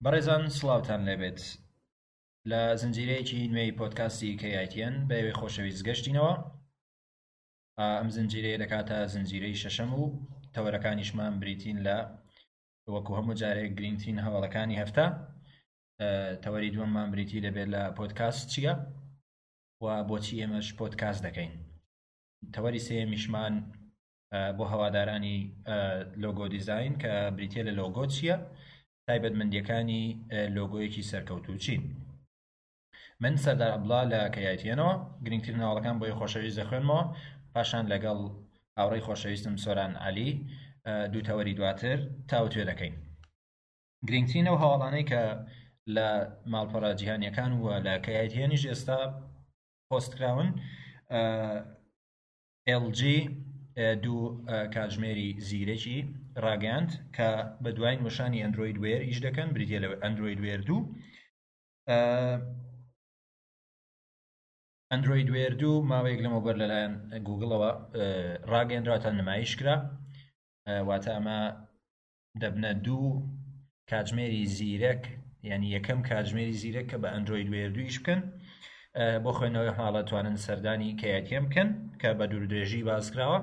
بەڕێزان سڵاوتان لێبێت لە زنجیرەیەکی نوێی پۆدکاستی KITN بە ئێوەی خۆشەویست گەشتینەوە ئەم زنجیرەیە دەکاتە زنجیرەی شەشەم و تەوەرەکانیشمان بریتین لە وەکو هەموو جارێک گرنگترین هەواڵەکانی هەفتە تەوەری دووەممان بریتی دەبێت لە پۆدکاست چییە و بۆچی ئێمەش پۆدکاست دەکەین تەوەری سێیەمیشمان بۆ هەوادارانی لۆگۆ دیزین کە بریتە لە لۆگۆ چییە تایبەتمەندیەکانی لۆگۆیەکی سەرکەوتوو چین من سەردار عەبدوڵا لە KITN ەوە گرنگترین هەواڵەکان بۆی خۆشەویست دەخوێنمەوە پاشان لەگەڵ هاوڕێی خۆشەویستم سۆران عەلی دوو تەوەری دواتر تاوتوێ دەکەین گرنگترین ئەو هەواڵانەی کە لە ماڵپەڕە جیهانیەکان و لە KITN یش ئێستا پۆست کراون LG دوو کاتژمێری زیرەکی ڕاگەیاند کە بە دوایین وەشانی ئەندرۆید وێر ئیش دەکەن بریتە لە ئەندرۆید وێر دوو ئەندرۆید وێر دوو ماوەیەک لەمەوبەر لەلایەن گوگڵەوە ڕاگەیەنرا تا نمایش کرا واتە ئەمە دەبنە دوو کاتژمێری زیرەک یعنی یەکەم کاتژمێری زیرەک کە بە ئەندرۆید وێر دوو ئیش بکەن بۆ خوێندنەوەی حاڵە توانن سەردانی کەیەتیم بکەن کە بە دوور درێژی باس کراوە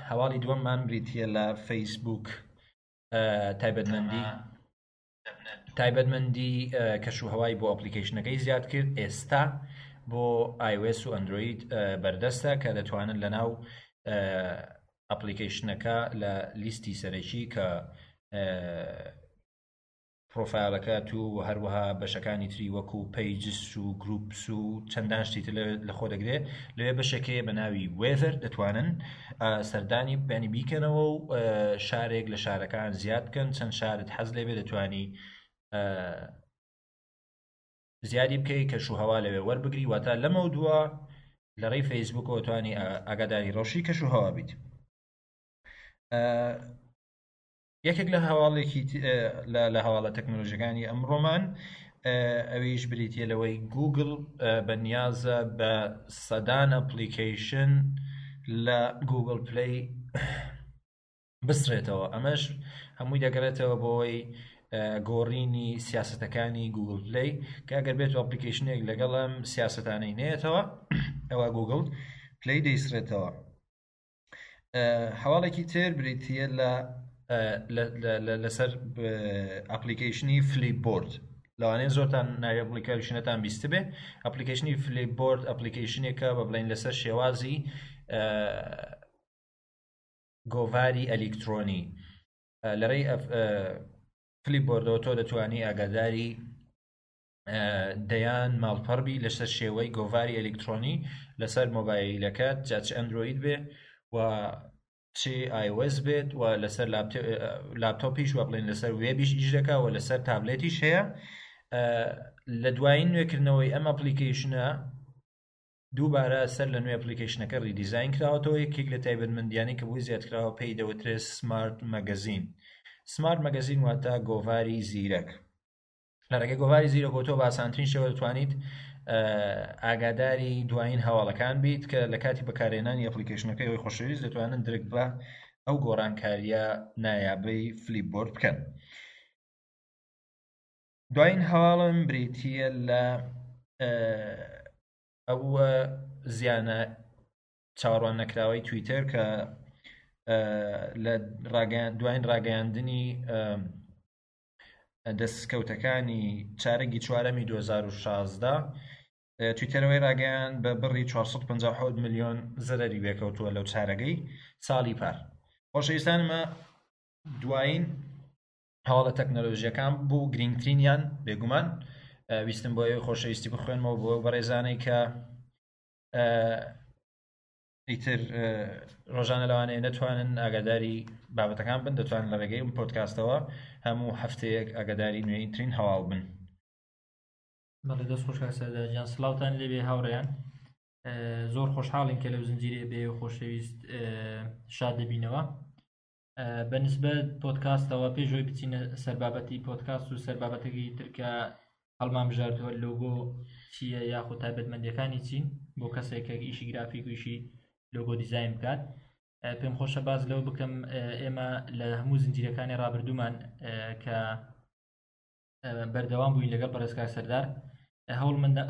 هەواڵی دووەممان بریتە لە فەیسبوک تایبەتمەندی تایبەتمەندی کەش و هەوای بۆ ئەپلیکیشنەکەی زیاد کرد ئێستا بۆ iOS و ئەندرۆید بەردەستە کە دەتوانن لە ناو ئەپلیکیشنەکە لە لیستی سەرەکی کە پرۆفایلەکەت و هەروەها بەشەکانی تری وەکو pages و groups و چەندان شتی تر لە خۆ دەگرێت لەوێ بەشێک هەیە بە ناوی weather دەتوانن سەردانی بەنی بیکەنەوە و شارێک لە شارەکان زیاد بکەن چەند شارت حەز لێبێ دەتوانی زیادی بکەی کەش و هەوا لەوێ وەربگری واتە لەمە دووە لە ڕێی فەیسبوکەوە توانی ئاگاداری ڕەوشی کەش و هەوا بیت یەکێک لە هەواڵێکی لە هەواڵە تەکنۆلۆژیەکانی ئەمڕۆمان ئەویش بریتە لەوەی گوگل بە نیازە بە سەدان ئەپلیکەیشن لە گوگل پلی بسرێتەوە ئەمەش هەمووی دەگەڕێتەوە بۆی گۆڕینی سیاستەکانی گوگل پلی کە ئەگەر بێت ئەپلیکیشنێک لەگەڵ ئەم سیاستانەی نێتەوە ئەوە گوگل پلی دەیسرێتەوە هەواڵێکی تر بریتە لە لەسەر ئەپلیکیشنی فلیپ بۆرد لەوانەیە زۆرتان ناوی ئەپلیکیشنەتان بیستبێ ئەپلیکیشنی فلیپ بۆرد ئەپلیکیشنێکە بە بڵین لەسەر شێوازی گۆڤاری ئەلیکترۆنی لە ڕێی فلیپ بۆردەوە تۆ دەتوانی ئاگاداری دەیان ماڵپەڕ بی لەسەر شێوەی گۆڤاری ئەلیکترۆنی لەسەر مۆبایلەکەت جا چ ئەندرۆید بێ و چ iOS بێت و لەسەر لاپتۆپیش وە بڵێن لەسەر وێبیش ئیش دەکا و لەسەر تابلێتیش هەیە لە دوایین نوێکردنەوەی ئەم ئەپلیکیشنە دووبارە سەر لە نوێ ئەپلیکیشنەکە ریدیزاین کراوەتەوە یەکێک لە تایبەتمەندیانی کە بۆی زیادکراوە پێی دەوترێت سمارت مەگەزین سمارت مەگەزین واتە گۆڤاری زیرەک لە ڕێگەی گۆڤاری زیرەکەوە تۆ بە ئاسانترین شێوە دەتوانیت ئاگاداری دوایین هەواڵەکان بیت کە لە کاتی بەکارهێنانی ئەپلیکیشنەکەی ئەوی خۆشەویست دەتوانن درک بە ئەو گۆڕانکاریە نایابەی فلیپ بۆرد بکەن دوایین هەواڵم بریتە لە ئەو زیانە چاوەڕوان نەکراوەی تویتەر کە لە دوایین ڕاگەیاندنی دەستکەوتەکانی چارەگی چوارەمی 2016 تویتەرەوەی ڕاگەیان بە بڕی 457 ملیۆن زەرەری وێکەوتووە لەو چارەگەی ساڵی پار خۆشەویستانمە دوایین هەواڵە تەکنەلۆژیەکان بوو گرنگترینیان بێگومان ویستم بۆ ئێوەی خۆشەویستی بخوێنمەوە بۆ بەڕێزانەی کە ئیتر ڕۆژانە لەوانەیە نەتوانن ئاگاداری بابەتەکان بن دەتوانن لە ڕێگەی ئەم پۆدکاستەوە هەموو هەفتەیەک ئاگاداری نوێیترین هەواڵ بن. بەڵێ دەست خۆش کاک سەردار گیان سڵاوتان لێبێ هاوڕێیان زۆر خۆشحاڵین کە لەو زنجیرەیە بێ خۆشەویست شاد دەبینەوە بە نسبەت پۆدکاستەوە پێش ئەوەی بچینە سەر بابەتی پۆدکاست و سەر بابەتەکەی تر کە هەڵمان بژاردووە لۆگۆ چییە یاخود تایبەتمەندیەکانی چین بۆ کەسێک کە ئیشی گرافیک و ئیشی لۆگۆ دیزاین بکات. پێم خۆشە باس لەوە بکەم ئێمە لە هەموو زنجیرەکانی ڕابردوومان کە بەردەوام بووین لەگەڵ بەڕێز کاک سەردار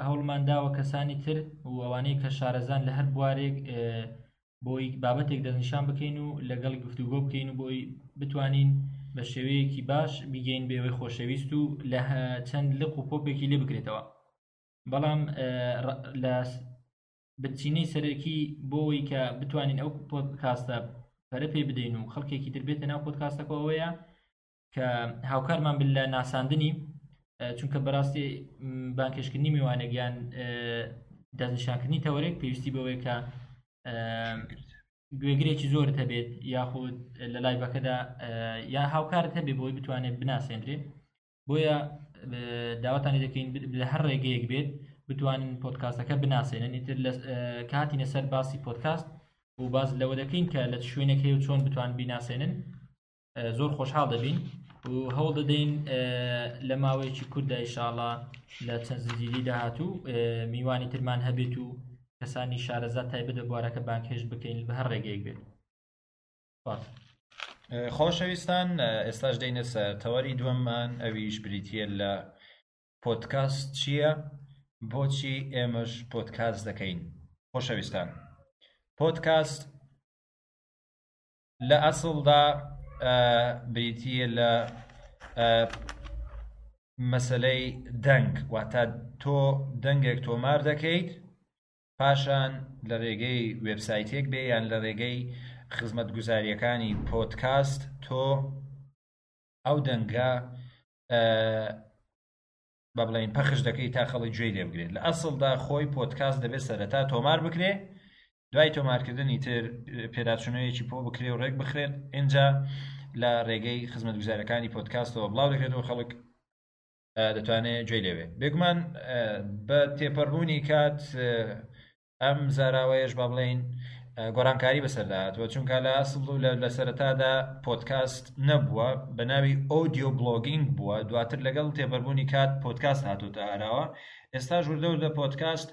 هەوڵمان داوە کەسانی تر و ئەوانەی کە شارەزان لە هەر بوارێک بۆی بابەتێک دەستنیشان بکەین و لەگەڵ گفتوگۆ بکەین و بۆی بتوانین بە شێوەیەکی باش بیگەین بێوەی خۆشەویست و لە چەند لق و پۆپێکی لێ بکرێتەوە بەڵام لە بنچینەی سەرەکی بۆ ئەوەی کە بتوانین ئەو پۆدکاستە پەرە پێ بدەین و خەڵکێکی تر بێتە ناو پۆدکاستەکە ئەوەیە کە هاوکارمان بن لە ناساندنی چونکە بەڕاستی بانکێشکردنی میوانێک یان دەستنیشانکردنی تەوەرێک پێویستی بەوەیە کە گوێگرێکی زۆرت هەبێت یاخود لە لایڤەکەدا یا هاوکارت هەبێ بۆی بتوانێت بناسێندرێ بۆیە داواتان لێ دەکەین لە هەر ڕێگەیەک بێت بتوانن پۆدکاستەکە بناسێنن ئیتر لە کاتینە سەر باسی پۆدکاست و باز لەوە دەکەین کە لە شوێنێک هەیە و چۆن بتوان بیناسێنن زۆر خۆشحاڵ دەبین و هەوڵ دەدەین لە ماوەیەکی کوورتدا ئیشاڵا لە چەند زنجیری داهاتوو میوانی ترمان هەبێت و کەسانی شارەزا تایبەت بە بوارەکە بانگهێشت بکەین بە هەر ڕێگەیەک بێت. خۆشەویستان ئێستاش دێینە سەر تەوەری دووەممان ئەویش بریتییە لە پۆدکاست چییە؟ بۆچی ئێمەش پۆدکاست دەکەین؟ خۆشەویستان پۆدکاست لە ئەسڵدا بریتییە لە مەسەلەی دەنگ واتە تۆ دەنگێک تۆمار دەکەیت پاشان لە رێگەی وێبسایتێک بێ یان لە رێگەی خزمەتگوزارییەکانی پۆدکاست تۆ ئەو دەنگە بە بڵێین پەخش دەکەی تا خەڵک گوێی لێ بگرێت لە ئەسڵدا خۆی پۆدکاست دەبێت سەرەتا تۆمار بکرێ دوای تۆمارکردنی تر پێداچوونەوەیەکی پۆ بکرێ و ڕێک بخرێت ئینجا لە ڕێگەی خزمەتگوزارەکانی پۆدکاستەوە بڵاو دەکرێتەوە خەڵک دەتوانێت گوێی لێبێ بێگومان بە تێپەڕبوونی کات ئەم زاراوەیەش با بڵێین گۆڕانکاری بەسەردا هاتووە چونکە لە ئەسڵ و لە سەرەتادا پۆدکاست نەبووە بە ناوی audio blogging بووە دواتر لەگەڵ تێپەربوونی کات پۆدکاست هاتوتە ئاراوە ئێستا وردە وردە پۆدکاست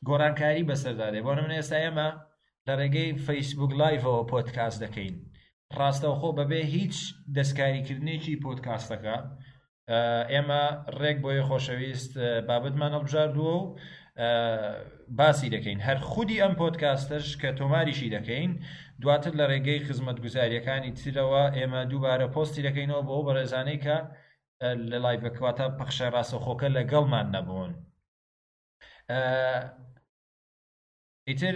گۆڕانکاری بەسەردا دێ بۆ نمونە ئێستا ئێمە لە ڕێگەی فەیسبوک لایڤەوە پۆدکاست دەکەین ڕاستەوخۆ بەبێ هیچ دەستکاریکردنێکی پۆدکاستەکە ئێمە ڕێک بۆیە خۆشەویست بابەتمان هەڵبژاردووە و باسی دەکەین هەر خودی ئەم پۆدکاستەش کە تۆماریشی دەکەین دواتر لە ڕێگەی خزمەتگوزاریەکانی ترەوە ئێمە دووبارە پۆستی دەکەینەوە بۆ بەڕێزانەی کە لە لایڤەکەواتە پەخشە ڕاستەوخۆکە لەگەڵمان نەبوون ئیتر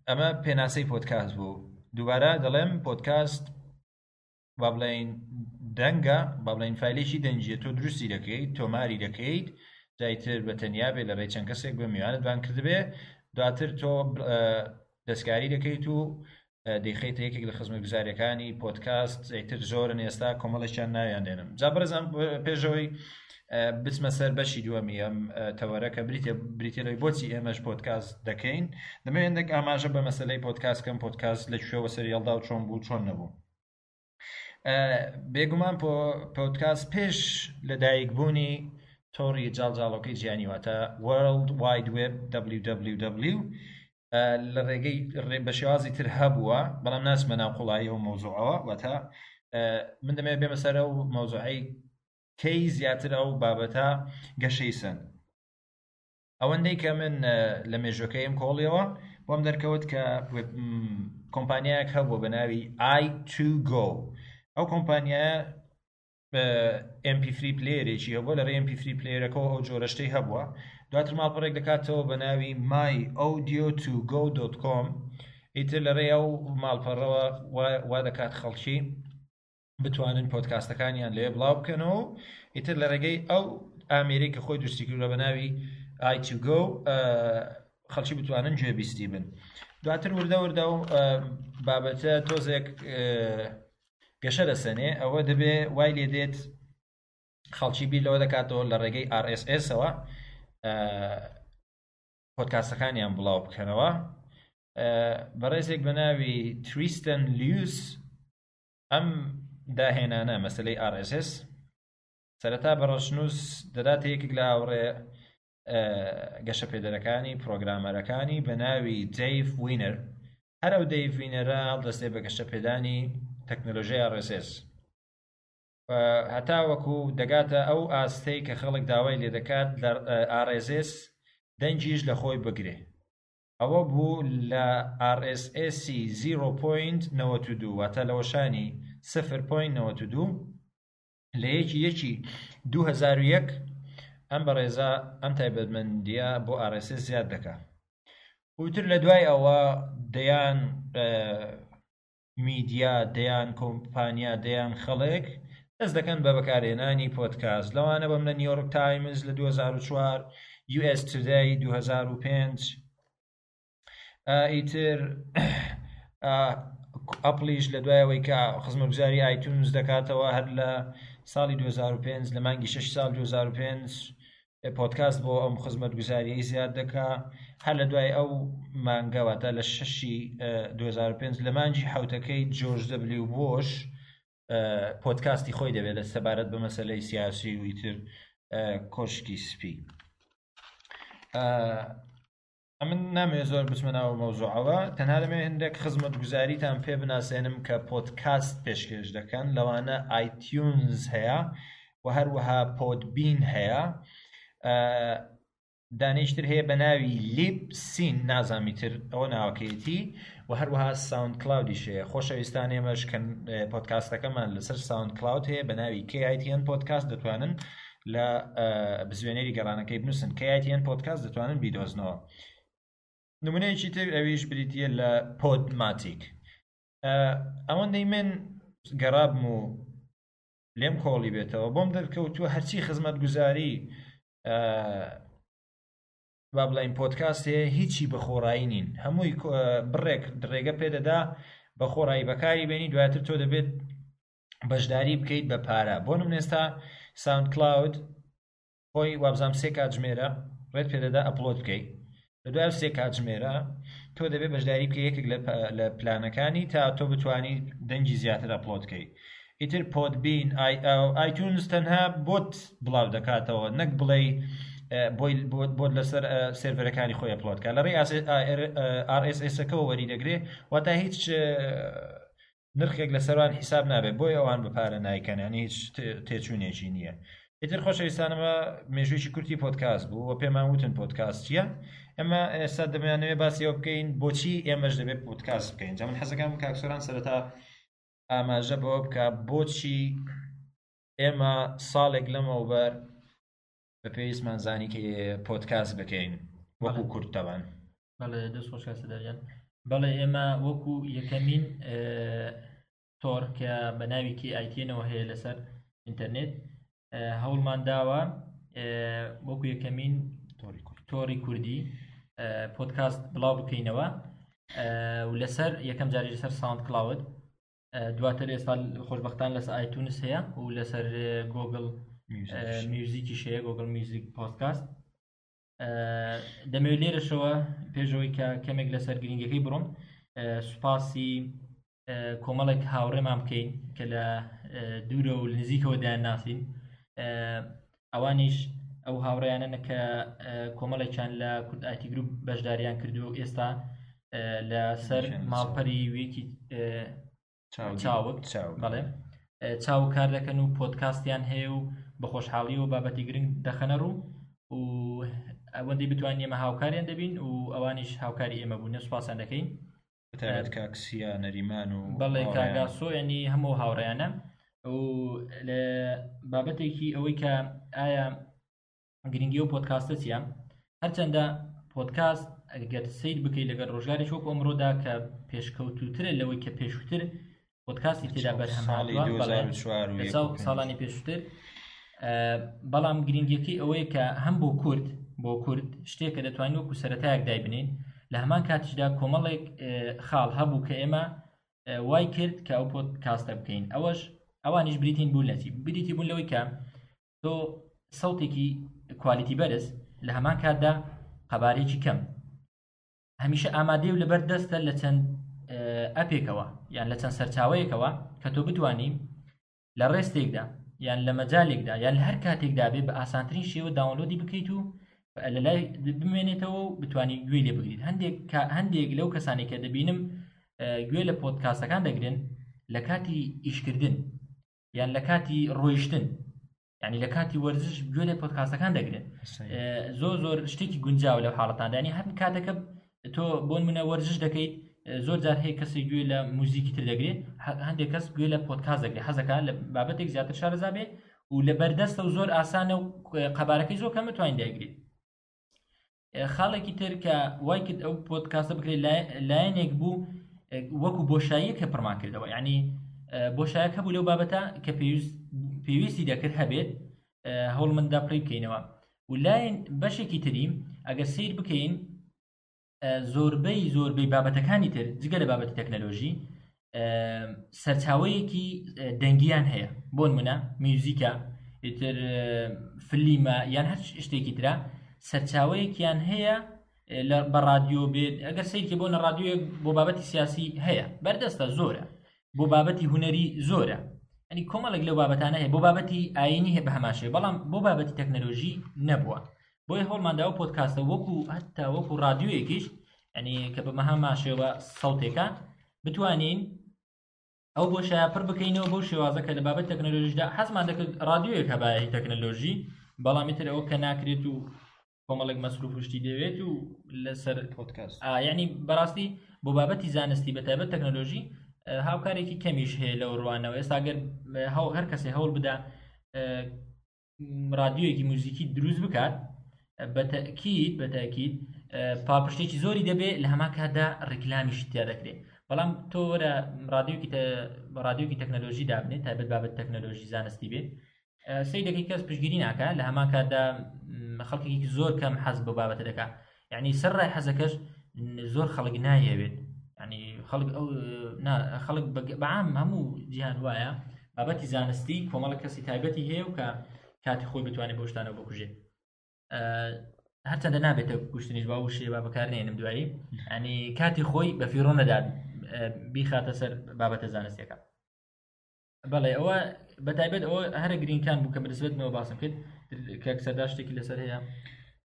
ئەمە پێناسەی پۆدکاست بوو دووبارە دەڵێم پۆدکاست با بڵێین دەنگە با بڵێین فایلێکی دەنگیە تۆ دروستی دەکەیت تۆماری دەکەیت جایتر بە تەنیا بێ لە ڕێی چەند کەسێک بە میوانت بان کردبێ دواتر تۆ دەستکاری دەکەیت و دەیخەیتە یەکێک لە خزمەتگوزاریەکانی پۆدکاست ئیتر زۆرن ئێستا کۆمەڵێکیان ناویان دێنم جا بەڕێزان پێشەوەی بچمە سەر بەشی دووەمی ئەم تەوەرە کە بریتە بریتە لەوەی بۆچی ئێمەش پۆدکاست دەکەین دەمەوێت هەندێک ئاماژە بە مەسەلەی پۆدکاست کەم پۆدکاست لە کوێوە سەری هەڵدا و چۆن بوو چۆن نەبوو بێگومان پۆدکاست پێش لەدایکبوونی تۆڕی جاڵجاڵۆکەی جیهانی واتە World Wide Web WWW لە ڕێگەی بە شێوازی تر هەبووە بەڵام ناچمە ناو قوڵایی ئەو مەوزوعەوە واتە من دەمەوێت بێمە سەر ئەو مەوزوعەی کەی زیاتر ئەو بابەتە گەشەی سەند ئەوەندەی کە من لە مێژوەکەیم کۆڵیەوە بۆم دەرکەوت کە کۆمپانیایەک هەبووە بە ناوی i2go ئەو کۆمپانیایە MP3 پلەیەرێکی هەبووە لە ڕێی MP3 پلەیەرەکەەوە ئەو جۆرە شتەی هەبووە دواتر ماڵپەڕێک دەکاتەوە بە ناوی myaudio2go.com ئیتر لە ڕێی ئەو ماڵپەڕەوە وا دەکات خەڵکی بتوانن پۆدکاستەکانیان لێ بڵاو بکەنەوە و ئیتر لە ڕێگەی ئەو ئامێرەی کە خۆی دروستی کردووە بە ناوی i2go خەڵکی بتوانن گوێبیستی بن دواتر وردە وردە و بابەتە تۆزێک گەشە دەسەنێ ئەوە دەبێ وای لێ دێت خەڵکی بیر لەوە دەکاتەوە لە ڕێگەی RSS-ەوە پۆدکاستەکانیان بڵاو بکەنەوە بەڕێزێک بە ناوی تریستن لیوس ئەم داهێنانە مەسلەی RSS سەرەتا بە ڕەشنووس دەداتە یەکێک لە هاوڕێ گەشەپێدەرەکانی پرۆگرامەرەکانی بە ناوی دەیڤ وینەر. هەر ئەو دەیڤ وینەرە هەڵدەستێ بە گەشەپێدانی تەکنەلۆژیای RSS هەتاوەکو دەگاتە ئەو ئاستەی کە خەڵک داوای لێدەکات لە RSS دەنگیش لە خۆی بگرێ. ئەوە بوو لە RSS 0.92 واتە لە وەشانی 0.92 لە یەکی یەکی 2001 ئەم بەڕێزە ئەم تایبەتمەندیە بۆ RSS زیاد دەکا. وتر لە دوای ئەوە دەیان میدیا، دەیان کۆمپانیا، دەیان خەڵک دەست دەکەن بە بەکارهێنانی پۆدکاست، لەوانە بەم لە نیویۆرک تایمز لە 2004، US Today 2005، ئیتر ئەپڵیش لە دوای ئەوەی کە خزمەتگوزاری iTunes دەکاتەوە هەر لە ساڵی 2005 لە مانگی 6 ساڵ 2005 پۆدکاست بۆ ئەم خزمەتگوزاریەی زیاد دەکا هەر لە دوای ئەو مانگە واتە لە شەشی 2005 لە مانگی حوتەکەی جۆرج دەبلیو بۆش پۆدکاستی خۆی دەبێت لە سەبارەت بە مەسلەی سیاسی و ئیتر کۆشکی سپی. ئەمن نامەوێت زۆر بچمە ناو مەوزوعەوە، تەنها دەمەوێت هەندێک خزمەتگوزاریتان پێ بناسێنم کە پۆدکاست پێشکێش دەکەن، لەوانە iTunes هەیە و هەروەها Podbean هەیە، دانێکی تر هەیە بە ناوی Libsyn، نازانم تر ئەوە ناوەکەیەتی، و هەروەها SoundCloud یش هەیە. خۆشەویستان ئێمەش کە پۆدکاستەکەمان لەسەر SoundCloud هەیە بە ناوی KITN پۆدکاست، دەتوانن لە بزوێنەری گەڕانەکەی بنووسن KITN پۆدکاست، دەتوانن بیدۆزنەوە. نمونەیەکی تر ئەویش بریتییە لە Podomatic. ئەوەندەی من گەڕابم و لێم کۆڵی بێتەوە بۆم دەرکەوتووە هەرچی خزمەتگوزاری با بڵێین پۆدکاست هەیە هیچی بە خۆڕایی نین، هەمووی بڕێک ڕێگە پێدەدا بە خۆڕایی بەکاری بێنی، دواتر تۆ دەبێت بەشداری بکەیت بە پارە. بۆ نمونە ئێستا SoundCloud خۆی وابزانام 3 کاتژمێرە ڕێت پێدەدا upload بکەیت، لە دوای 3 کاتژمێرە تۆ دەبێت بەشداری بکەیت یەکێک لە پلانەکانی تا تۆ بتانی دەنگی زیاتر upload بکەیت. ئیتر Podbean iTunes تەنها بۆت بڵاو دەکاتەوە، نەک بڵێ بۆی بۆت لەسەر سێرڤەرەکانی خۆی upload کە لە ڕێی RSS-ەکەوە وەری دەگرێ، واتە هیچ نرخێک لەسەروان حیساب نابێت، بۆی ئەوان بە پارە نایکەن، یعنی هیچ تێچوونێکی نییە. ئیتر خۆشەویستانەمە مێژوویەکی کورتی پۆدکاست بوو و پێمان وتن پۆدکاست چییە. ئێمە ئێستا دەمانەوێت باسی ئەوە بکەین بۆچی ئێمەش دەبێت پۆدکاست بکەین. جا من حەزەکەم کاک سۆران سەرەتا ئاماژە بەوە بکە بۆچی ئێمە ساڵێک لەمەوبەر بە پێویستمان زانی کە پۆدکاست بکەین وەکو کورد تەبان. بەڵێ دەست خۆش کاک سەردار. بەڵێ ئێمە وەکو یەکەمین تۆڕ کە بە ناوی KITN-ەوە هەیە لەسەر ئینتەرنێت هەوڵمان داوە وەکو یەکەمین تۆڕی کوردی پۆدکاست بڵاو بکەینەوە و لەسەر یەکەم جاری لەسەر SoundCloud، دواتر ئێستا خۆشببختان لەسەر iTunes هەیە و لەسەر Google Music یش هەیە، Google Music پۆدکاست. دەمەوێت لێرەشەوە پێشەوەی کە کەمێک لەسەر گرنگەکەی بڕۆم سوپاسی کۆمەڵێک هاوڕێمان بکەین کە لە دوورە و نزیکەوە دایان ناسین. ئەوانیش ئەو هاوڕێیانە کە کۆمەڵێکیان لە کورد IT Group بەشداریان کردو و ئێستا لەسەر ماڵپەری ویکی چاوگ بەڵێ چاو کار دەکەن و پۆدکاستیان هەیە و بە خۆشحاڵی و بابەتی گرنگ دەخەنە ڕوو و ئەوەندەی بتوانین ئێمە هاوکاریان دەبین و ئەوانیش هاوکاری ئێمە بوون، سوپاسیان دەکەین. بەتایبەت کاک سیا نەریمان و بەڵێ کاگاسۆ، ینی هەموو هاوڕێیانە. و لە بابەتێکی ئەوەی کە ئایا گرنگی و پۆدکاستە چییە، هەرچەندە پۆدکاست ئەگەر سیر بکەیت لەگەر ڕۆژگارێک وەکو ئەمڕۆدا کە پێشکەوتوترە لەوەی کە پێشووتر پۆدکاستی تێدا بەرهەم هاتووە، ساڵانی پێشووتر، بەڵام گرنگیەکەی ئەوەیە کە هەم بۆ کورد بۆ کورد شتێکە دەتوانین وەکو سەرەتایەک دایبنین، لە هەمان کاتیشدا کۆمەڵێک خاڵ هەبوو کە ئێمە وای کرد کە ئەو پۆدکاستە بکەین. ئەوەش ئەوانیش بریتین بوون لە چی؟ بریتی بوون لەوەی کە تۆ سەوتێکی کوالیتی بەرز لە هەمان کاتدا قەبارەیەکی کەم هەمیشە ئامادەی و لەبەر دەستە لە چەند ئەپێکەوە یان لە چەند سەرچاوەیەکەوە کە تۆ بتانی لە ڕێستێکدا یان لە مەجالێکدا یان لە هەر کاتێکدا بێ بە ئاسانترین شێوە داونلۆدی بکەیت و لە لای بمێنێتەوە و بتانی گوێی لێ بگریت. هەندێک هەندێک لەو کەسانی کە دەبینم گوێ لە پۆدکاستەکان دەگرن لە کاتی ئیشکردن یان لە کاتی ڕۆیشتن یعنی لە کاتی وەرزش گوێ لە پۆدکاستەکان دەگرن زۆر زۆر شتێکی گونجاو لەو حاڵەتاندانی هەر کاتەکە تۆ بۆن منە وەرزش دەکەیت زۆر جار هەیە کەسێک گوێ لە موزیکی تر دەگرێت هەندێک کەس گوێ لە پۆدکاست دەگرێت حەزەکە لە بابەتێک زیاتر شارەزا بێ و لە بەردەستە و زۆر ئاسانە و قەبارەکەی زۆر کەمە توانین دایگرێت خاڵێکی تر کە وای کرد ئەو پۆدکاستە بکرێت لایەنێک بوو وەکو بۆشاییە کە پڕمان کردەوە یعنی بۆشایەک هەبوو لەو بابەتە کە پێویستی دەکرد هەبێت هەوڵ مندا پڕی بکەینەوە و لایەن بەشێکی تری ئەگەر سیر بکەین زۆربەی زۆربەی بابەتەکانی تر جگە لە بابەتی تەکنەلۆژی سەرچاوەیەکی دەنگیان هەیە بۆ نمونە میوزیکە ئیتر فلیمە یان هەر شتێکی ترە سەرچاوەیەکیان هەیە لە بە رادیۆ بێت ئەگەر سیرکە بۆ نە رادیۆیەک بۆ بابەتی سیاسی هەیە بەردەستە زۆرە بۆ بابەتی هونەری زۆرە ئەنی کۆمەڵێک لەو بابەتانە هەیە بۆ بابەتی ئاینی هەیە بە هەمان شێوە بەڵام بۆ بابەتی تەکنەلۆژی نەبووە بۆیە هەوڵماندا ئەو پۆدکاستە وەکو هەتا وەکو رادیۆیەکیش ینی کە بە مەهامان شێوە سەوتێکە بتوانین ئەو بۆشایە پڕ بکەینەوە بەو شێوازە کە لە بابەت تەکنەلۆژیدا حەزمان دەکرد رادیۆیەک هەبایە تەکنەلۆژی بەڵام ئیتر ئەوە کە ناکرێت و کۆمەڵێک مەسروف شتی دەوێت و لەسەر پۆدکاست یعنی بەڕاستی بۆ بابەتی زانستی بە تایبەت تەکنەلۆژی هاوکارێکی کەمیش هەیە لەو ڕوانەوە ئێستا گەر هەر کەسێ هەوڵ بدا رادیۆیەکی موزیکی دروست بکات بەتەکیید بەتاکیید پاڵپشتێکی زۆری دەبێت لە هەمان کاتدا ڕیکلامیش تیا دەکرێت بەڵام تۆ وەرە رادیۆکی رادیۆکی تەکنەلۆژی دابنێت تایبەت بابەت تەکنەلۆژی زانستی بێت سەی دەکەی کەس پشگیری ناکە لە هەمان کاتدا خەڵکێکی زۆر کەم حەز بۆ بابەتە دەکات یعنی سەر ڕای حەزەکەش زۆر خەڵک نایەوێت ینی خەڵک ئەو خەڵک بەعام هەموو جیهان وایە بابەتی زانستی کۆمەڵە کەسی تایبەتی هەیە و کە کاتی خۆی بتوانێت بۆ شتانەوە بکوژێت هەرچەندە نابێتە کوشتنیش با وشەیە با بەکارنێنم دوایی ینی کاتی خۆی بە فیڕۆ نەدات بیخاتە سەر بابەتە زانستیەکە بەڵێ ئەوە بەتایبەت ئەوە هەرە گرینگکان بوو کە بەنسبەتمەوە باسم کرد کاک سەردار شتێکی لەسەر هەیە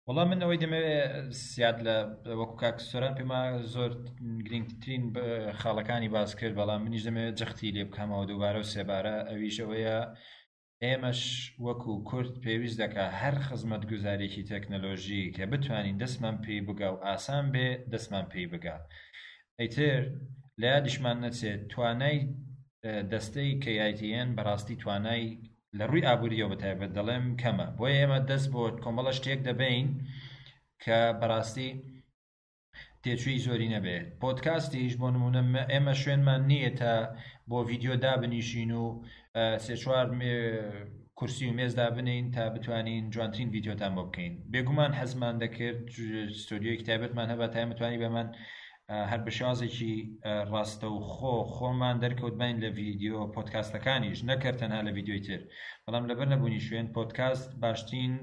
وەڵا من ئەوەی دەمەوێت زیاد لە وەکو کاک سۆران پێما زۆر گرنگترین خاڵەکانی باس کرد بەڵام منیش دەمەوێت جەختی لێ بکەمەوە دووبارە و سێبارە ئەویش ئەوەیە ئێمەش وەکو کورد پێویست دەکا هەر خزمەتگوزارێکی تەکنەلۆژی کە بتوانین دەستمان پێی بگا و ئاسان بێ دەستمان پێی بگا ئیتر لە یادیشمان نەچێت توانای دەستەی KITN بەڕاستی توانای لە ڕووی ئابووریەوە بەتایبەت دەڵێم کەمە بۆیە ئێمە دەست بۆ کۆمەڵە شتێک دەبەین کە بەڕاستی تێچووی زۆری نەبێت پۆدکاستیش بۆ نمونە ئێمە شوێنمان نییە تا بۆ ڤیددیو دابنیشین و سێ چوار کورسی و مێز دابنین تا بتوانین جوانترین ڤیددیۆتان بۆ بکەین بێگومان حەزمان دەکرد ستۆدیۆیەکی تایبەتمان هەبا تا ئێمە توانی بەمان هەر بە شێوازێکی ڕاستەوخۆ خۆمان دەرکەوت باین لە ڤیددیۆ پۆدکاستەکانیش نەکرد تەنها لە ڤیددیۆی تر بەڵام لەبەر نەبوونی شوێن پۆدکاست باشترین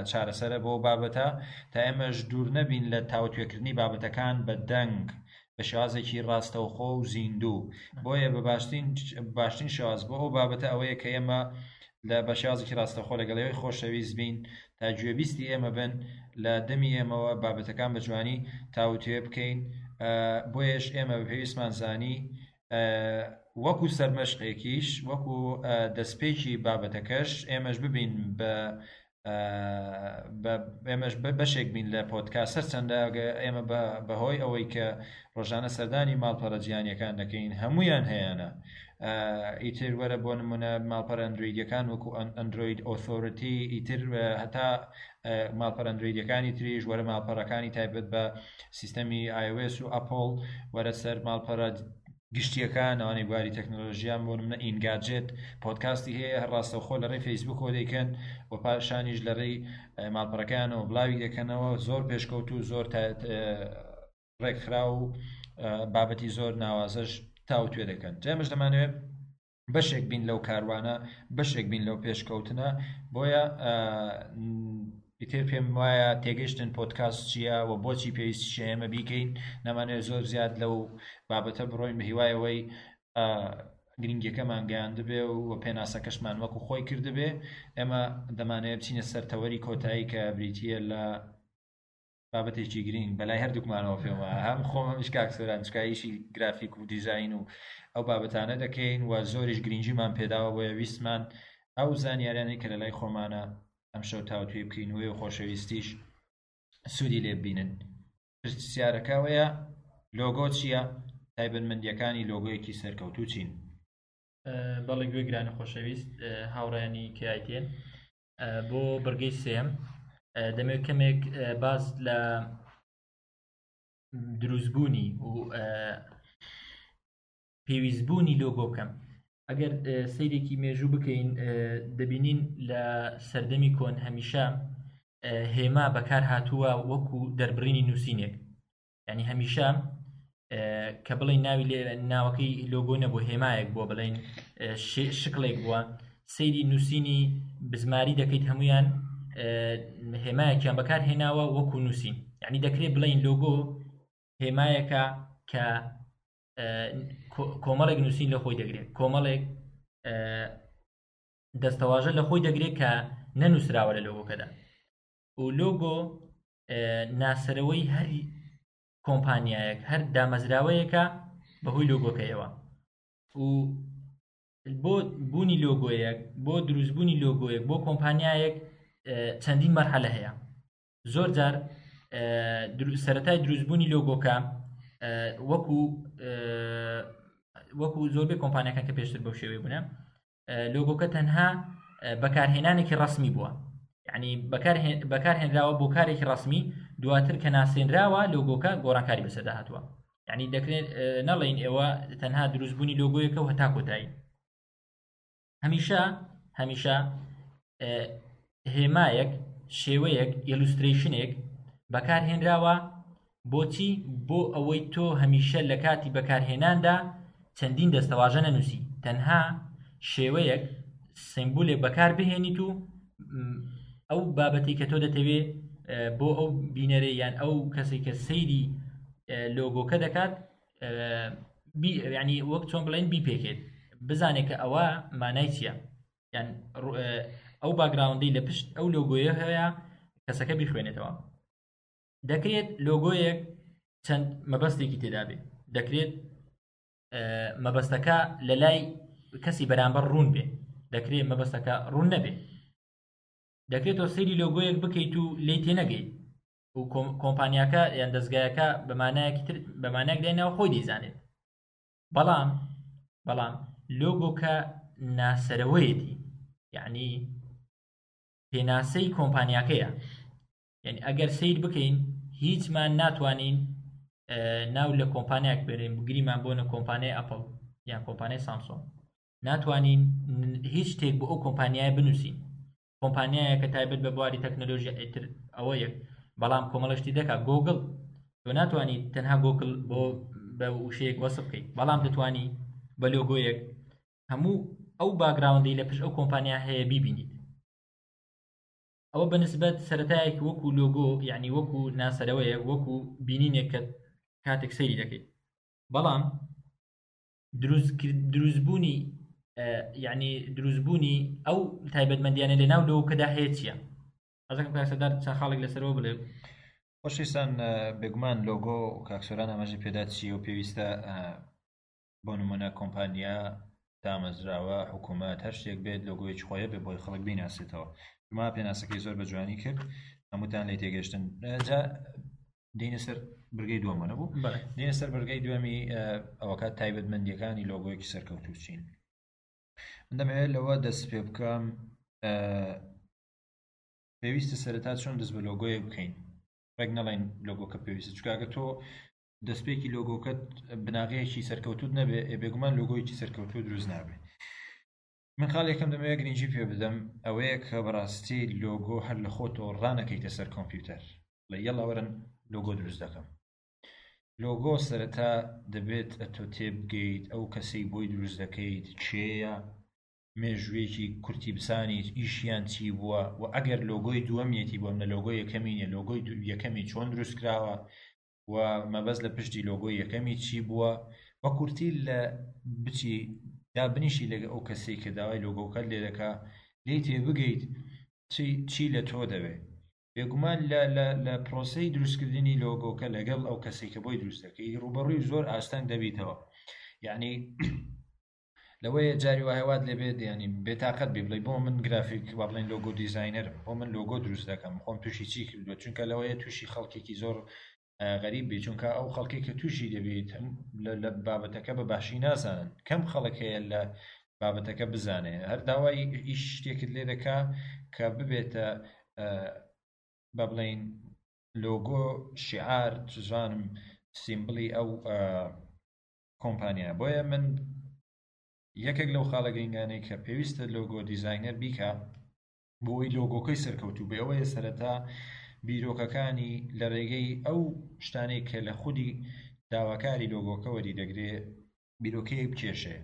چارەسەرە بۆ بابەتە تا ئێمەش دوور نەبین لە تاوتوێکردنی بابەتەکان بە دەنگ بە شێوازێکی ڕاستەوخۆ و زیندوو بۆیە بە باشترین باشترین شێواز بۆ ئەو بابەتە ئەوەیە کە ئێمە لە بە شێوازێکی ڕاستەوخۆ لەگەڵ ئێوەی خۆشەویست بین تا گوێبیستی ئێمە بن لە دەمی ئێمەوە بابەتەکان بە جوانی تاوتوێ بکەین بۆیەش ئێمە بە پێویستمان زانی وەکو سەرمەشقێکیش وەکو دەستپێکی بابەتەکەش ئێمەش ببین بە ئێمەش بەشێک بین لە پۆدکاست هەرچەندە ئێمە بەهۆی ئەوەی کە ڕۆژانە سەردانی ماڵپەڕە جیهانیەکان دەکەین هەمویان هەیەە ئیتر وەرە بۆ نمونە ماڵپەڕە ئەندرۆیدەکان وەکو ئەندرۆید ئۆثۆرتی ئیتر هەتا ماڵپەڕە ئەندرۆیدەکانی تریش وەرە ماڵپەڕەکانی تایبەت بە سیستەمی iOS و ئەپڵ وەرە سەر ماڵپەڕە گشتیەکان ئەوانەی بواری تەکنەلۆژیان بۆ نمونە ئینگاجێت پۆدکاستی هەیە هەر ڕاستەوخۆ لە ڕێی فەیسبوکەوە دەیکەن و پاشانیش لە ڕێی ماڵپەڕەکەیانەوە بڵاوی دەکەنەوە زۆر پێشکەوت و زۆر ڕێکخراو و بابەتی زۆر ناوازەش تاوتوێ دەکەن جا ئێمەش دەمانەوێت بەشێک بین لەو کاروانە بەشێک بین لەو پێشکەوتنە بۆیە ئیتر پێم وایە تێگەشتن پۆدکاست چییە و بۆچی پێویستیشە ئێمە بیکەین نامانەوێت زۆر زیاد لەو بابەتە بڕۆین بە هیوای ئەوەی گرنگیەکەمان گەیاندبێ و پێناسەکەشمان وەکو خۆی کردبێ ئێمە دەمانەوێت بچینە سەر تەوەری کۆتایی کە بریتییە لە. بابەتێکی گرینگ بەلای هەردووکمانەوە پێم وایە هەم خۆم هەمیش کاک سۆران چونکە ئیشی گرافیک و دیزاین و ئەو بابەتانە دەکەین و زۆریش گرنگیمان پێداوە بۆیە ویستمان ئەو زانیاریانەی کە لەلای خۆمانە ئەمشەو تاوتوێ بکەین و ئێوە خۆشەویستیش سوودی لێ ببینن. پرسیارەکە ئەوەیە لۆگۆ چییە؟ تایبەتمەندییەکانی لۆگۆیەکی سەرکەوتوو چین؟ بەڵێ گوێگرانی خۆشەویست هاوڕیانی کایتێن بۆ بڕگەی سێم دەمێت کەمێک باس لە دروستبوونی و پێویستبوونی لۆگۆ بکەم ئەگەر سەیرێکی مێژوو بکەین دەبینین لە سەردەمی کۆن هەمیشە هێما بەکار هاتووە وەکو دەربڕینی نووسینێک یعنی هەمیشە کە بڵێن ناوی لێ ناوەکەی لۆگۆ نەبوو هێمایەک بووە بڵێن شکڵێک بووە سەیری نووسینی بزماری دەکەیت هەمویان هێمایەکیان بەکار هێناوە وەکو نووسین یعنی دەکرێت بڵین لۆگۆ هێمایەکە کە کۆمەڵێک نووسین لە خۆی دەگرێت کۆمەڵێک دەستەواژە لە خۆی دەگرێت کە نەنووسراوە لە لۆگۆکەدا و لۆگۆ ناسەرەوەی هەر کۆمپانیایەک هەر دامەزراوەیەکە بەهۆی لۆگۆکەیەوە و بۆ بوونی لۆگۆیەک بۆ دروستبوونی لۆگۆیەک بۆ کۆمپانیایەک چەندین مەرحەلە هەیە زۆر جار سەتای دروستبوونی لۆگۆکە وەکو وەکو زۆربەی کۆمپانیەکان کە پێشتر بەو شێوەیە بوونە لۆگۆکە تەنها بەکارهێنانێکی ڕسمی بووە یعنی بەکارهێنراوە بۆ کارێکی ڕسمی دواتر کە ناسێنراوە لۆگۆکە گۆڕانکاری بەسەردا هاتووە یعنی دەکرێت نەڵێین ئێوە تەنها دروستبوونی لۆگۆیەکە و هەتا کۆتایی هەمیشە هەمیشە هێمایەک شێوەیەک illustration ێک بەکارهێنراوە بۆچی بۆ ئەوەی تۆ هەمیشە لە کاتی بەکارهێناندا چەندین دەستەواژە نەنووسی تەنها شێوەیەک سیمبولێک بەکار بهێنیت و ئەو بابەتی کە تۆ دەتەوێ بۆ ئەو بینەرێ یان ئەو کەسێک کە سەیری لۆگۆکە دەکات ینی وەک چۆن بڵێن بیپێکێت بزانێت کە ئەوە مانای چییە یان ئەو background ەی لە پشت ئەو لۆگۆیە هەیە کەسەکە بیخوێنێتەوە دەکرێت لۆگۆیەک چەند مەبەستێکی تێدا بێت دەکرێت مەبەستەکە لە لای کەسی بەرامبەر ڕوون بێ دەکرێت مەبەستەکە ڕوون نەبێ دەکرێت تۆ سەیری لۆگۆیەک بکەیت و لی تێنەگەیت و کۆمپانیاکە یان دەستگایەکە بەمانایەکی تر بەمانایەک دایناوە خۆی دەیزانێت بەڵام بەڵام لۆگۆکە ناسەرەوەیەتی یعنی پێناسەی کۆمپانیاکەیە یعنی ئەگەر سیر بکەین هیچمان ناتوانین ناو لە کۆمپانیاک بێنین بگریمان بۆنە کۆمپانیای ئەپل یان کۆمپانیای سامسۆن ناتوانین هیچ شتێک بۆ ئەو کۆمپانیای بنووسین کۆمپانیایەکە تایبەت بە بواری تەکنەلۆژیا ئیتر ئەوە یەک بەڵام کۆمەڵە شتی دەکات گۆگڵ تۆ ناتوانانی تەنها گۆگڵ بۆ بە وشەیەک وەسف بکەیت بەڵام دەتوانی بە لۆگۆیەک هەموو ئەو background ەی لە پشت ئەو کۆمپانیا هەیە بیبینیت ئەوە بەنسبەت سەتایەک وەکو لۆگۆ یعنی وەکو ناسەرەوەیە وەکو بینینێک کە کاتێک سەیری دەکەیت بەڵام دروستبوونی یعنی دروستبوونی ئەو تایبەتمەندیانە لە ناو لۆگۆکەدا هەیە چییە؟ حەزەکەم کاک سەردار چەند خاڵێک لەسەرەوە بڵێ. خۆشەویستان بێگومان لۆگۆ کاک سۆران ئاماژەی پێدا چییە و پێویستە بۆ نمونە کۆمپانیا دامەزراوە حکوومەت هەر شتێک بێت لۆگۆیەکی خۆی بێ بۆی خەڵک بیناسێتەوە ما پێناسەکەی زۆر بە جوانی کرد هەمووتان لێ تێگەشتن جا دێینە سەر برگەی دووەمە نەبوو دێنە سەر برگەی دووەمی ئەوەکات تایبەتمەندیەکانی لۆگۆیەکی سەرکەوتوو چین من دەمەوێت لەوە دەست پێ بکەم پێویستە سەرەتا چۆن دەست بە لۆگۆیەک بکەین ڕێک نەڵێن لۆگۆکە پێویستە چکاگە تۆ دەستپێکی لۆگۆکەت بناغەیەکی سەرکەوتوت نەبێ بێگومان لۆگۆیەکی سەرکەوتوو دروست نابێ من خاڵی یەکەم دەمەوێت گرنگی پێ بدەم ئەوەیە کە بەڕاستی لۆگۆ هەر لە خۆتەوە ڕانەکەیتە سەر کۆمپیوتەر بڵێ یەڵا وەرن لۆگۆ دروست دەکەم لۆگۆ سەرەتا دەبێت ئەتۆ تێبگەیت ئەو کەسەی بۆی دروست دەکەیت کێیە مێژوویەکی کورتی بزانیت ئیشیان چی بووە و ئەگەر لۆگۆی دووەمیەتی بۆ منە لۆگۆی یەکەمی نیە لۆگۆی یەکەمی چۆن دروست کراوە و مەبەست لە پشتی لۆگۆی یەکەمی چی بووە بە کورتی لە بچی دابنیشی لەگە ئەو کەسەی کە داوای لۆگۆکەت لێ دەکا لێی تێبگەیت چی چی لە تۆ دەوێ. بێگومان لە لە لە پرۆسەی دروستکردنی لۆگۆکە لەگەڵ ئەو کەسێک کە بۆی دروست دەکەی ڕوبەڕووی زۆر ئاستەنگ دەبیتەوە. یعنی لەوەیە جاری وایە وات لێ بێت ینی بێتاقەت بی بڵێ بۆ من گرافیک با بڵێن logo designer م، بۆ من لۆگۆ دروست دەکەم، خۆم تووشی چی کردووە؟ چونکە لەوەیە تووشی خەڵکێکی زۆر غەریب بی، چونکە ئەو خەڵکی کە تووشی دەبیت لە بابەتەکە بە باشی نازانن. کەم خەڵک هەیە لە بابەتەکە بزانێ، هەر داوای ئیش شتێکت لێ دەکا کە ببێتە بە بڵین لۆگۆ، شعار، چزانم symbol ی ئەو کۆمپانیا. بۆیە من یەکێک لەو خاڵە گرنگانەی کە پێویستە logo designer بیکا بۆی لۆگۆکەی سەرکەوتوو بێ ئەوەیە سەرەتا بیرۆکەکانی لە ڕێگەی ئەو شتانەی کە لە خودی داواکاری لۆگۆکە وەری دەگرێ بیرۆکەیەک بکێشێ،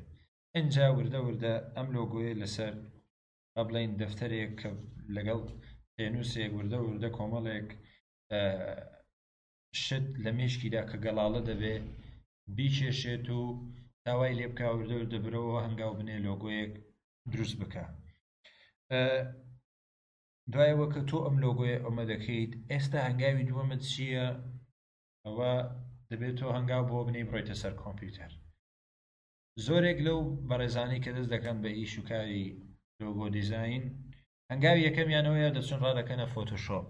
ئینجا وردە وردە ئەم لۆگۆیە لەسەر با بڵێین دەفتەرێک کە لەگەڵ پێنووسێک وردە وردە کۆمەڵێک شت لە مێشکیدا کە گەڵاڵە دەبێ بیکێشێت و داوای لێ بکا وردە وردە برەوە هەنگاو بنێ لۆگۆیەک دروست بکە. دوایەوە کە تۆ ئەم لۆگۆیە ئەمە دەکەیت، ئێستا هەنگاوی دووەمت چییە؟ ئەوە دەبێت تۆ هەنگاو بۆ بنێی بڕۆیتە سەر کۆمپیوتەر. زۆرێک لەو بەڕێزانەی کە دەست دەکەن بە ئیش و کاری logo design، هەنگاوی یەکەمیانەوەیە دەچن ڕادەکەنە فۆتۆشۆپ،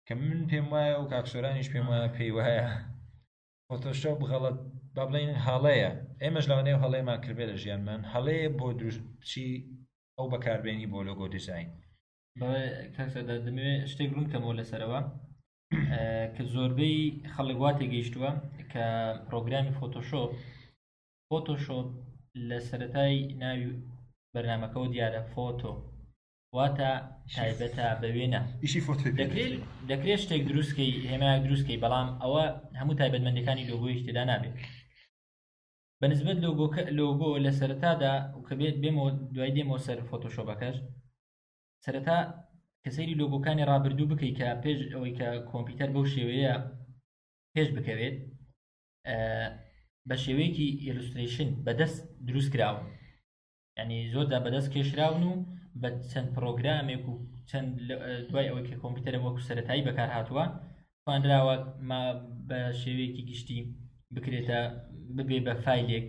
کە من پێم وایە و کاک سۆرانیش پێم وایە پێی وایە فۆتۆشۆپ غەڵەت، با بڵێین هەڵەیە. ئێمەش لەوانەیە هەڵەیەمان کردبێ لە ژیانمان، هەڵەیە بۆ دروست بچی ئەو بەکاربێنی بۆ logo design. بەڵێ کاک سەردار، دەمەوێت شتێک ڕوون بکەمەوە لەسەرەوە کە زۆربەی خەڵک وا تێگەیشتووە کە پرۆگرامی فۆتۆشۆپ، فۆتۆشۆپ لە سەرەتای ناوی بەرنمەکەەوە دیارە photo واتە تایبەتە بە وێنە. ئیشی فۆتۆی پێ دەکرێت دەکرێت. دەکرێت شتێک دروستکەی، هێمایەک دروستکەی، بەڵام ئەوە هەموو تایبەتمەندەکانی لۆگۆیش تێدا نابێت. بە نسبەت لۆگۆکە، لۆگۆ لە سەرەتادا کە بێت بێمەوە دوای دێمەوە سەر فۆتۆشۆپەکەش، سەرەتا کە سەیری لۆگۆکانی ڕابردوو بکەیت کە پێش ئەوەی کە کۆمپیوتەر بەو شێوەیە پێش بکەوێت، بە شێوەیەکی illustration بەدەست دروست کراون، یعنی زۆر جار بەدەست کێشراون و بە چەند پرۆگرامێک و چەند دوای ئەوەی کە کۆمپیوتەرە وەکو سەتایی بەکار هاتووە توانراوە ما بە شێوەیەکی گشتی بکرێتە ببێ بە فایلێک.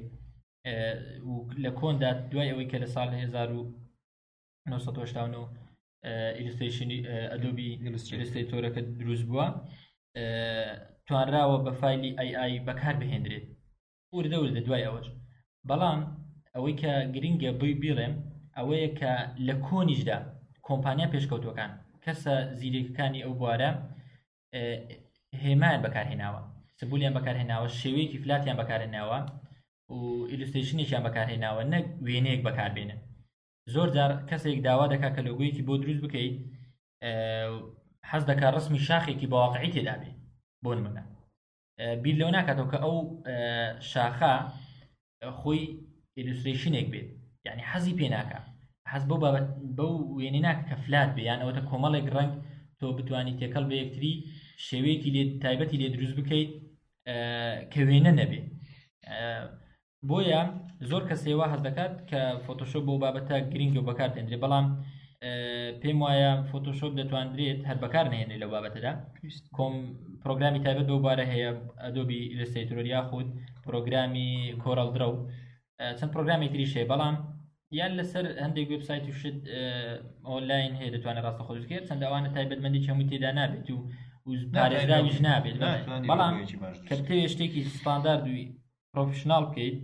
و لە کۆندا دوای ئەوەی کە لە ساڵ 1989 illustration ی ئەدۆبی ئیلوسترەیتۆرەکە دروست بووە، توانراوە بە فایلی ئای ئای بەکار بهێنرێت وردە وردە دوای ئەوەش. بەڵام ئەوەی کە گرنگە بۆی بیڵێم ئەوەیە کە لە کۆنیشدا کۆمپانیا پێشکەوتوەکان کەسە زیرەکەکانی ئەو بوارە هێمایان بەکارهێناوە، symbol یان بەکارهێناوە، شێوەیەکی flat یان بەکارهێناوە و illustration ێکیان بەکارهێناوە، نەک وێنەیەک بەکاربێنن. زۆر جار کەسێک داوا دەکات کە لۆگۆیەکی بۆ دروست بکەیت، حەز دەکات ڕسمی شاخێکی بەواقعی تێدا بێ، بۆ نمونە بیر لەوە ناکاتەوە کە ئەو شاخە خۆی illustration ێک بێت، یعنی حەزی پێ ناکە، حەز بەو بابەت بەو وێنەی ناکە کە flat بێ، یان ئەوەتە کۆمەڵێک ڕەنگ تۆ بتوانی تێکەڵ بە یەکتری شێوەیەکی لێ تایبەتی لێ دروست بکەیت، کە وێنە نەبێ. بۆیە زۆر کەسێ وا هەست دەکات کە فۆتۆشۆپ بۆ بابەتە گرنگە و بەکار دێنرێ، بەڵام پێم وایە فۆتۆشۆپ دەتواندرێت هەر بەکار نهێنرێت لەو بابەتەدا. کۆم پرۆگرامی تایبەت بەو بارە هەیە، ئەدۆبی ئیلسترەیتۆر یاخود پرۆگرامی کۆرەڵ درەو، چەند پرۆگرامی تریش هەیە، بەڵام یان لەسەر هەندێک وێبسایت و شت ئۆنلاین هەیە دەتوانێت ڕاستەخۆ دروست بکرێت. چەند ئەوانە تایبەتمەندی هەمووی تێدا نابێت و پارێزراویش نابێت. بەڵام کە بتەوێت شتێکی ستاندارد و professional بکەیت،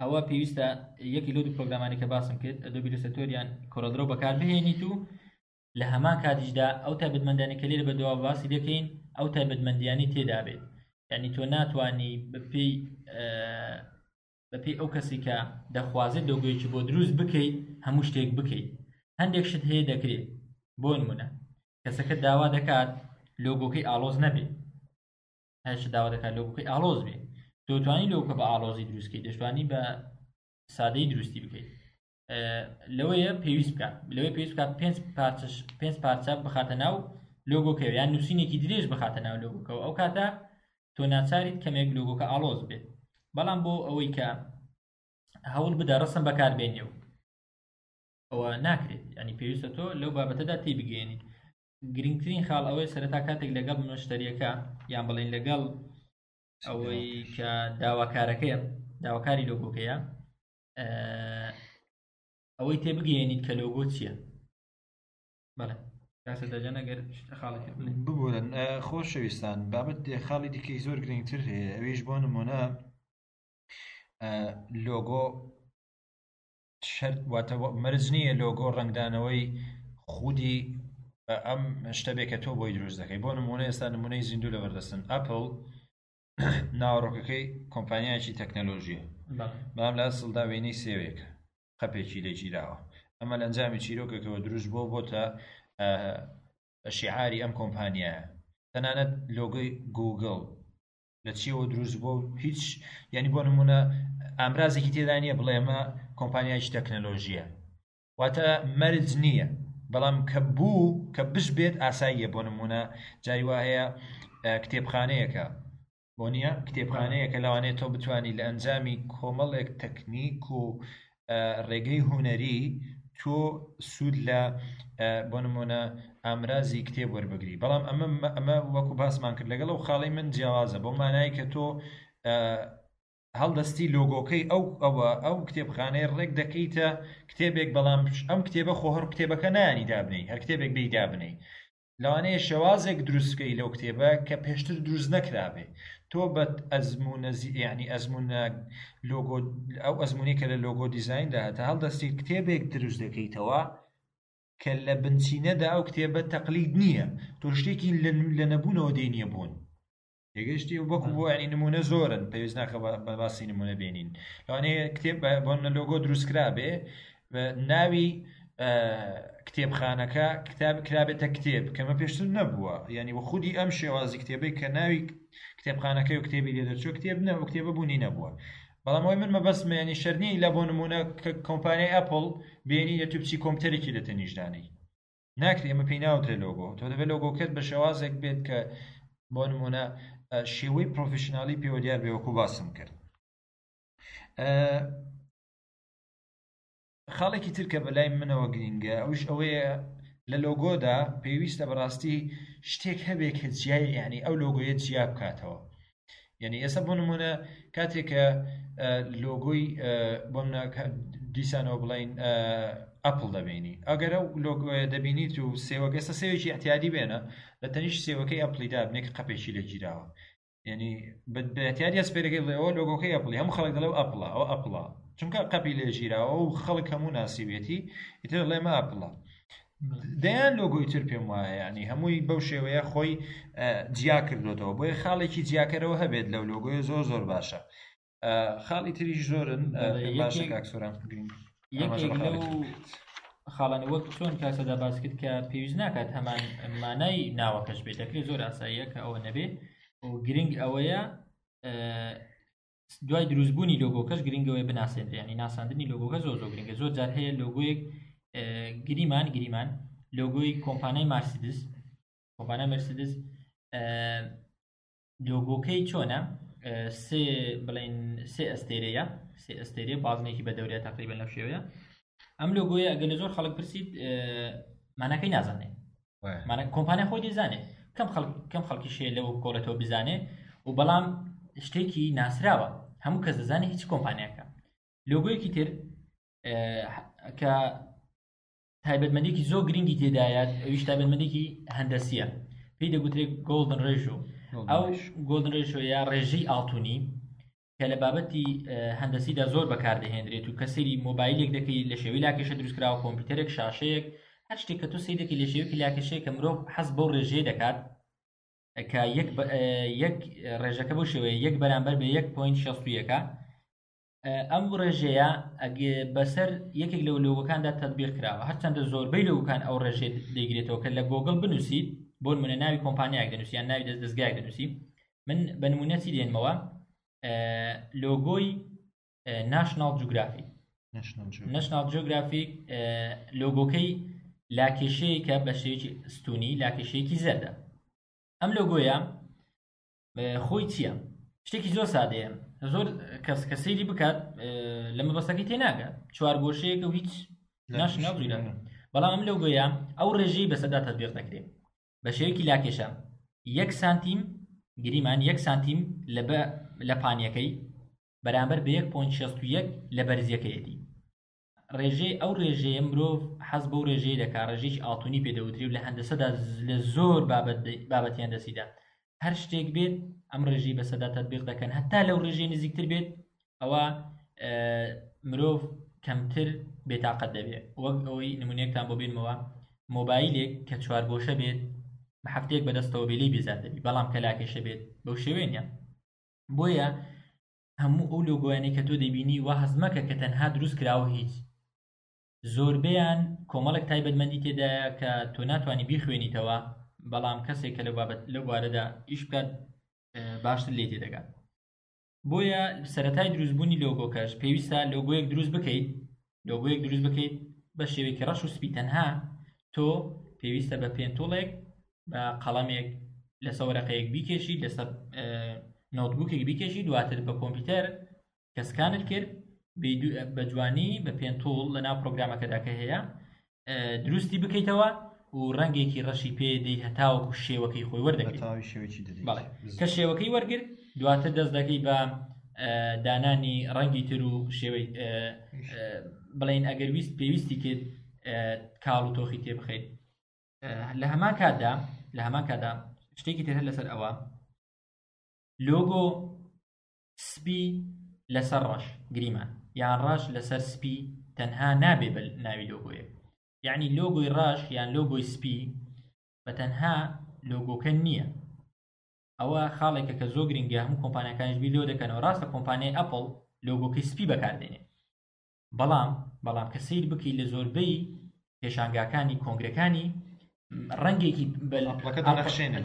ئەوە پێویستە یەکی لەو دوو پرۆگرامانی کە باسم کرد، ئەدۆبی ئیلسترەیتۆر یان کۆرەڵ درەو بەکار بهێنیت و لە هەمان کاتیشدا ئەو تایبەتمەندانی کە لێرە بەدوا باسی دەکەین ئەو تایبەتمەندیانی تێدا بێت. یعنی تۆ ناتوانی بەپێی ئەو کەسی کە دەخوازێت لۆگۆیەکی بۆ دروست بکەیت هەموو شتێک بکەیت. هەندێک شت هەیە دەکرێت، بۆ نمونە کەسەکە داوا دەکات لۆگۆکەی ئاڵۆز نەبێت، هەرچ داوا دەکات لۆگۆکەی ئاڵۆز بێت، تۆ توانی لۆگۆکە بە ئاڵۆزی دروست بکەیت، دەشتوانی بە سادەی دروستی بکەیت. لەوەیە پێویست بکات، لەوەی پێویست بکات پێنج پارچە بخاتە ناو لۆگۆکەوە یان نووسینێکی درێژ بخاتە ناو لۆگۆکەوە، ئەو کاتە تۆ ناچاریت کەمێک لۆگۆکە ئاڵۆز بێت. بەڵام بۆ ئەوەی کە هەوڵ بدە ڕسم بەکاربێنێ و ئەوە ناکرێت، ینی پێویستە تۆ لەو بابەتەدا تێبگەیەنیت. گرنگترین خاڵ ئەوەی سەرەتا کاتێک لەگەڵ مشتەریەکە یان بڵێن لەگەڵ ئەوەی کە داواکارەکەیە داواکاری لۆگۆکەیە ئەوەی تێبگەیەنیت کە لۆگۆ چییە بەڵێ کاسە دەجان ئەگەر خاڵی تر بڵێ. ببورن خۆشەویستان بابەت خاڵی دیکەی زۆر گرنگتر هەیە ئەویش بۆ نمونە لۆگۆ شەرت واتە مەرج نییە لۆگۆ ڕەنگدانەوەی خودی ئەم شتە بێ کە تۆ بۆی دروست دەکەی بۆ نمونە ئێستا نمونەی زیندوو لەبەردەستن ئەپل ناوەڕۆکەکەی کۆمپانیایەکی تەکنەلۆژیە بەڵام لە ئەسڵدا وێنەی سێوێکە قەپێکی لێگیراوە ئەمە لە ئەنجامی چیرۆکێکەوە دروست بۆ بۆتە شیعاری ئەم کۆمپانیایە تەنانەت لۆگۆی گوگڵ لە چیەوە دروست بۆ هیچ یعنی بۆ نمونە ئامرازێکی تێدا نییە بڵێ ئەمە کۆمپانیایکی تەکنەلۆژیە واتە مەرج نییە بەڵام کە بوو کە بش بێت ئاساییە بۆ نمونە جاری وا هەیە کتێبخانەیەکە بۆ نییە کتێبخانەیەکە لەوانەیە تۆ بتانی لە ئەنجامی کۆمەڵێک تەکنیک و ڕێگەی هونەری تۆ سوود لە بۆ نمونە ئامرازی کتێب وەربگری بەڵام ئەمە ئەمە وەکو باسمان کرد لەگەڵ ئەو خاڵی من جیاوازە بۆ مانای کە تۆ هەڵدەستی لۆگۆکەی ئەو ئەوە ئەو کتێبخانەیە ڕێک دەکەیتە کتێبێک بەڵام ئەم کتێبە خۆ هەر کتێبەکە نانی دابنەی هەر کتێبێک بی دابنەی لەوانەیە شێوازێک دروست بکەی لەو کتێبە کە پێشتر دروست نەکرابێ تۆ بە ئەزمونە یعنی ئەزمونە لۆگۆ ئەو ئەزمونی کە لە لۆگۆ دیزایندا هەتە هەڵدەستی کتێبێک دروست دەکەیتەوە کە لە بنچینەدا ئەو کتێبە تەقلید نییە تۆ شتێکی لە نەبوونەوە دێنیە بوون تێگەشتی وەکو بۆ ینی نمونە زۆرن پێویست ناکە بە باسی نمونە بێنین لەوانەیە کتێب بۆ لۆگۆ دروستکرا بێ ناوی کتێبخانەکە کتاب کرابێتە کتێب کەمە پێشتر نەبووە یعنی وە خودی ئەم شێوازی کتێبەی کە ناوی کتێبخانەکەی و کتێبی لێ دەرچوو کتێب نە و کتێبە بوونی نەبووە بەڵام ئەوەی من مەبەستمە ینی شەرنی لە بۆ نمونە کە کۆمپانیای ئەپل بێنی لە تو بچی کۆمپیوتەرێکی لە تەنیشدانەی ناکرێ ئەمە پێی ناوترێ لۆگۆ تۆ دەبێت لۆگۆکەت بە شێوازێک بێت کە بۆ نمونە شێوەی پرۆفشنالی پێوە دیار بێ وەکو باسم کرد خاڵێکی تر کە بەلای منەوە گرینگە ئەوش ئەوەیە لە لۆگۆدا پێویستە بەڕاستی شتێک هەبێ کە جیای یعنی ئەو لۆگۆیە جیا بکاتەوە یعنی ئێستا بۆ نمونە کاتێک کە لۆگۆی بۆ دیسانەوە بڵین ئەپل دەبینی ئەگەر ئەو لۆگۆیە دەبینیت و سێوەکە ئێستا سێوێکی اعتیادی بێنە لە تەنیش سێوەکەی ئەپلی دابنێک قەپێکی لێگیراوە یعنی بە اعتیادی ئەسپێرەکەی بڵێ ئەوە لۆگۆکەی ئەپلی هەموو خەڵک دەڵێ ئەپڵە ئەوە ئەپڵە چونکە قەپی لێگیراوە و خەڵک هەموو ناسیوێتی ئیتر ڵێ مە ئەپڵە دەیان لۆگۆی تر پێم وایە ینی هەمووی بەو شێوەیە خۆی جیا کردوێتەوە بۆیە خاڵێکی جیاکەرەوە هەبێت لەو لۆگۆیە زۆر زۆر باشە خاڵی تریش زۆرن باشە کاکسۆران یەکێک لەو خاڵانی وەک چۆن کاسەدا باس کرد کە پێویست ناکات هەمان مانای ناوەکەش بێت دەکرێت زۆر ئاساییە کە ئەوە نەبێ و گرنگ ئەوەیە دوای دروستبوونی لۆگۆکەش گرنگەوەی بناسێنرێ ینی ناساندنی لۆگۆکە زۆر زۆر گرنگە زۆر جار هەیە لۆگۆیەک گریمان گریمان لۆگۆی کۆمپانیای مارسیدس کۆمپانیای مەرسیدس لۆگۆکەی چۆنە سێ بڵین سێ ئەستێرەیە سێ ئەستێرەیە بازنێکی بە دەورەیە تقریبا لەو شێوەیە ئەم لۆگۆیە ئەگەر لە زۆر خەڵک پرسیت ماناکەی نازانێت مانە کۆمپانیا خۆی دەزانێت کەم خەڵک کەم خەڵکی شێ لەوە بکۆڵێتەوە بزانێ و بەڵام شتێکی ناسراوە هەموو کەس دەزانێت هیچ کۆمپانیاکە لۆگۆیەکی تر کە تایبەتمەندێکی زۆر گرنگی تێدایە ئەویش تایبەتمەندێکی هەندەسیە پێی دەگوترێت golden ratio ئەو golden ratio یا ڕێژەی ئاڵتونی کە لە بابەتی هەندەسیدا زۆر بەکاردەهێنرێت و کە سەیری مۆبایلێک دەکەی لە شێوەی لاکێشە دروستکراوە کۆمپیوتەرێک شاشەیەک هەر شتێک کە تۆ سەیری دەکەی لە شێوەیەکی لاکێشەیە کە مرۆڤ حەز بەو ڕێژەیە دەکات کە یەک یەک ڕێژەکە بۆ شێوەیە یەک بەرامبەر بە یەک point شەست و یەکە ئەم ڕێژەیە بەسەر یەکێک لەو لۆگۆکاندا تەطبیق کراوە هەرچەندە زۆربەی لۆگۆکان ئەو ڕێژەیە دەیگرێتەوە کە لە گۆگڵ بنووسیت بۆ نمونە ناوی کۆمپانیایەک دەنووسی یان ناوی دەست دەستگایەک دەنووسی من بە نمونە چی دێنمەوە لۆگۆی ناشناڵ جوگرافی ناشناڵ جیۆگرافیک لۆگۆکەی لاکێشەیەکە بە شێوەیەکی ستونی لاکێشەیەکی زەردە ئەم لۆگۆیە خۆی چییە شتێکی زۆر سادەیە زۆر کەس کە سەیری بکات لە مەبەستەکەی تێناگات چوار گۆشەیەکە و هیچ ناشناڵ جیۆگرافی بەڵام ئەم لۆگۆیە ئەو ڕێژەی بەسەردا تەطبیق دەکرێت. بە شێوەیەکی لاکێشە یەک سانتیم گریمان یەک سانتیم لە بە لە پانیەکەی بەرامبەر بە 1.61 لە بەرزیەکەیەتی ڕێژەی ئەو ڕێژەیە مرۆڤ حەز بەو ڕێژەیە دەکا ڕێژەیەکی ئاڵتونی پێ دەوترێ و لە هەندەسەدا لە زۆر بابەت بابەتی هەندەسیدا هەر شتێک بێت ئەم ڕێژەی بەسەدا تەطبیق دەکەن هەتا لەو ڕێژەی نزیکتر بێت ئەوە مرۆڤ کەمتر بێتاقەت دەبێت وەک ئەوەی نمونەیەکتان بۆ بێنمەوە مۆبایلێک کە چوارگۆشە بێت بە هەفتەیەک بەدەستەوە بێ لێی بێزار دەبی بەڵام کە لاکێشە بێت بەو شێوەیە نییە بۆیە هەموو ئەو لۆگۆیانەی کە تۆ دەبینی وا هەست مەکە کە تەنها دروست کراوە هیچ زۆربەیان کۆمەڵێک تایبەتمەندی تێدایە کە تۆ ناتوانانی بیخوێنیتەوە بەڵام کەسێک کە لەو بابەت لەو بوارەدا ئیش بکات باشتر لێ تێدەگات بۆیە سەرەتای دروستبوونی لۆگۆکەش پێویستە لۆگۆیەک دروست بکەیت لۆگۆیەک دروست بکەیت بە شێوەیەکی ڕەش و سپی تەنها تۆ پێویستە بە pen tool ێک بە قەڵەمێک لەسەر وەرەقەیەک بیکێشی لەسەر notebook ێک بیکێشی دواتر بە کۆمپیوتەر کە scan ت کرد بە جوانی بە pen tool لە ناو پرۆگرامەکەدا کە هەیە دروستی بکەیتەوە و ڕەنگێکی ڕەشی پێ دەی هەتاوەکو شێوەکەی خۆی وەردەگریت بەڵێ کە شێوەکەی وەرگرت دواتر دەست دەکەی بە دانانی ڕەنگی تر و شێوەی بڵین ئەگەر ویست پێویستی کرد کاڵ و تۆخی تێ بخەیت لە هەمان کاتدا لە هەمان کاتدا شتێکی تر لەسەر ئەوە لۆگۆ سپی لەسەر ڕەش گریمان یان ڕەش لەسەر سپی تەنها نابێ بە ناوی لۆگۆیەک یعنی لۆگۆی ڕەش یان لۆگۆی سپی بە تەنها لۆگۆکە نییە ئەوە خاڵێکە کە زۆر گرنگە هەموو کۆمپانیەکانیش بیر لەوە دەکەنەوە ڕاستە کۆمپانیای ئەپڵ لۆگۆکەی سپی بەکاردێنێ بەڵام بەڵام کە سیر بکەی لە زۆربەی پێشانگاکانی کۆنگرەکانی ڕەنگێکی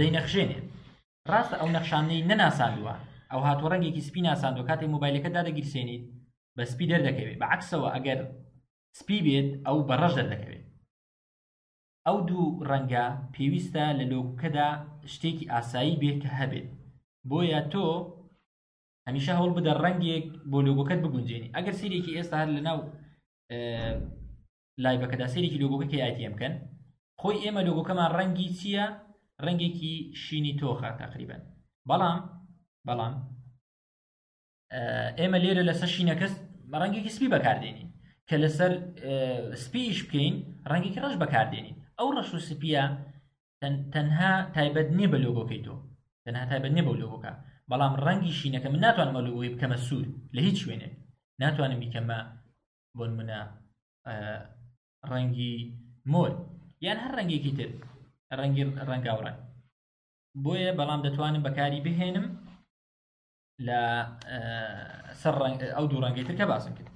دەینەخشێنێ ڕاستە ئەو نەخشانەی نەناساندووە ئەو هاتووە ڕەنگێکی سپی ناساندووە کاتێک مۆبایلەکە دادەگیرسێنیت بە سپی دەردەکەوێت بە عکسەوە ئەگەر سپی بێت ئەو بە ڕەش دەردەکەوێت ئەو دوو ڕەنگە پێویستە لە لۆگوکەدا شتێکی ئاسایی بێت کە هەبێت بۆیە تۆ هەمیشە هەوڵ بدە ڕەنگێک بۆ لۆگۆکەت بگونجێنی ئەگەر سیرێکی ئێستا هەر لەناو live ەکەدا سەیرێکی لۆگۆکە KITM بکەن خۆی ئێمە لۆگۆکەمان ڕەنگی چییە ڕەنگێکی شینی تۆخە تقریبا بەڵام بەڵام ئێمە لێرە لەسەر شینەکەس ڕەنگێکی سپی بەکاردێنین کە لەسەر سپیش بکەین ڕەنگێکی ڕەش بەکاردێنین ئەو ڕەش و سپیە تەنها تایبەت نییە بە لۆگۆکەی تۆ تەنها تایبەت نییە بەو لۆگۆکە بەڵام ڕەنگی شینەکە من ناتوانم ئەو لۆگۆی بکەمە سوور لە هیچ شوێنێک ناتوانم بیکەمە بۆ نمونە ڕەنگی مۆر یان هەر ڕەنگێکی تر ڕەنگی ڕەنگاوڕەنگ بۆیە بەڵام دەتوانم بەکاری بهێنم لە سەر ئەو دوو ڕەنگەی تر کە باسم کرد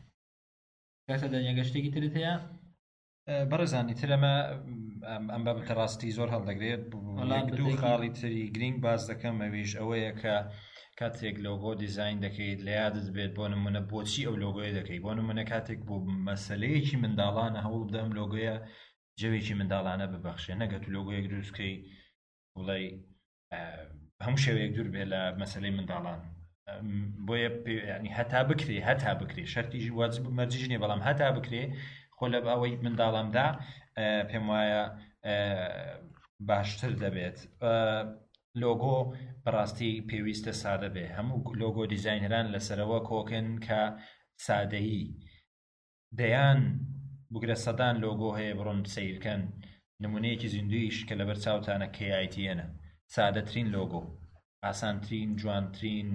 کەسە دەنگە شتێکی ترت هەیە بەڕێزانی تر ئەمە ئەم بابەتە ڕاستی زۆر هەڵدەگرێت دوو خاڵی تری گرنگ باس دەکەم ئەویش ئەوەیە کە کاتێک لۆگۆ دیزین دەکەیت لە یادت بێت بۆ نمونە بۆچی ئەو لۆگۆیە دەکەی بۆ نمونە کاتێک بۆ مەسلەیەکی منداڵانە هەوڵ بدەم لۆگۆیە جەوێکی منداڵانە ببەخشێ نەگەت و لۆگۆیەک دروستکەی بڵێ هەموو شێوەیەک دوور بێ لە مەسلەی منداڵان بۆیە ینی هەتا بکرێ هەتا بکرێ شەرتیش واجب مەرجیش نییە بەڵام هەتا بکرێ خۆ لە ئەوەی منداڵامدا پێم وایە باشتر دەبێت لۆگۆ بەڕاستی پێویستە سادە بێ هەموو لۆگۆ دیزینەران لەسەرەوە کۆکن کە سادەیی دەیان بگرە سەدان لۆگۆ هەیە بڕۆن سەیرکەن نمونەیەکی زیندویش کە لەبەر چاوتانە KITN ە سادەترین لۆگۆ ئاسانترین جوانترین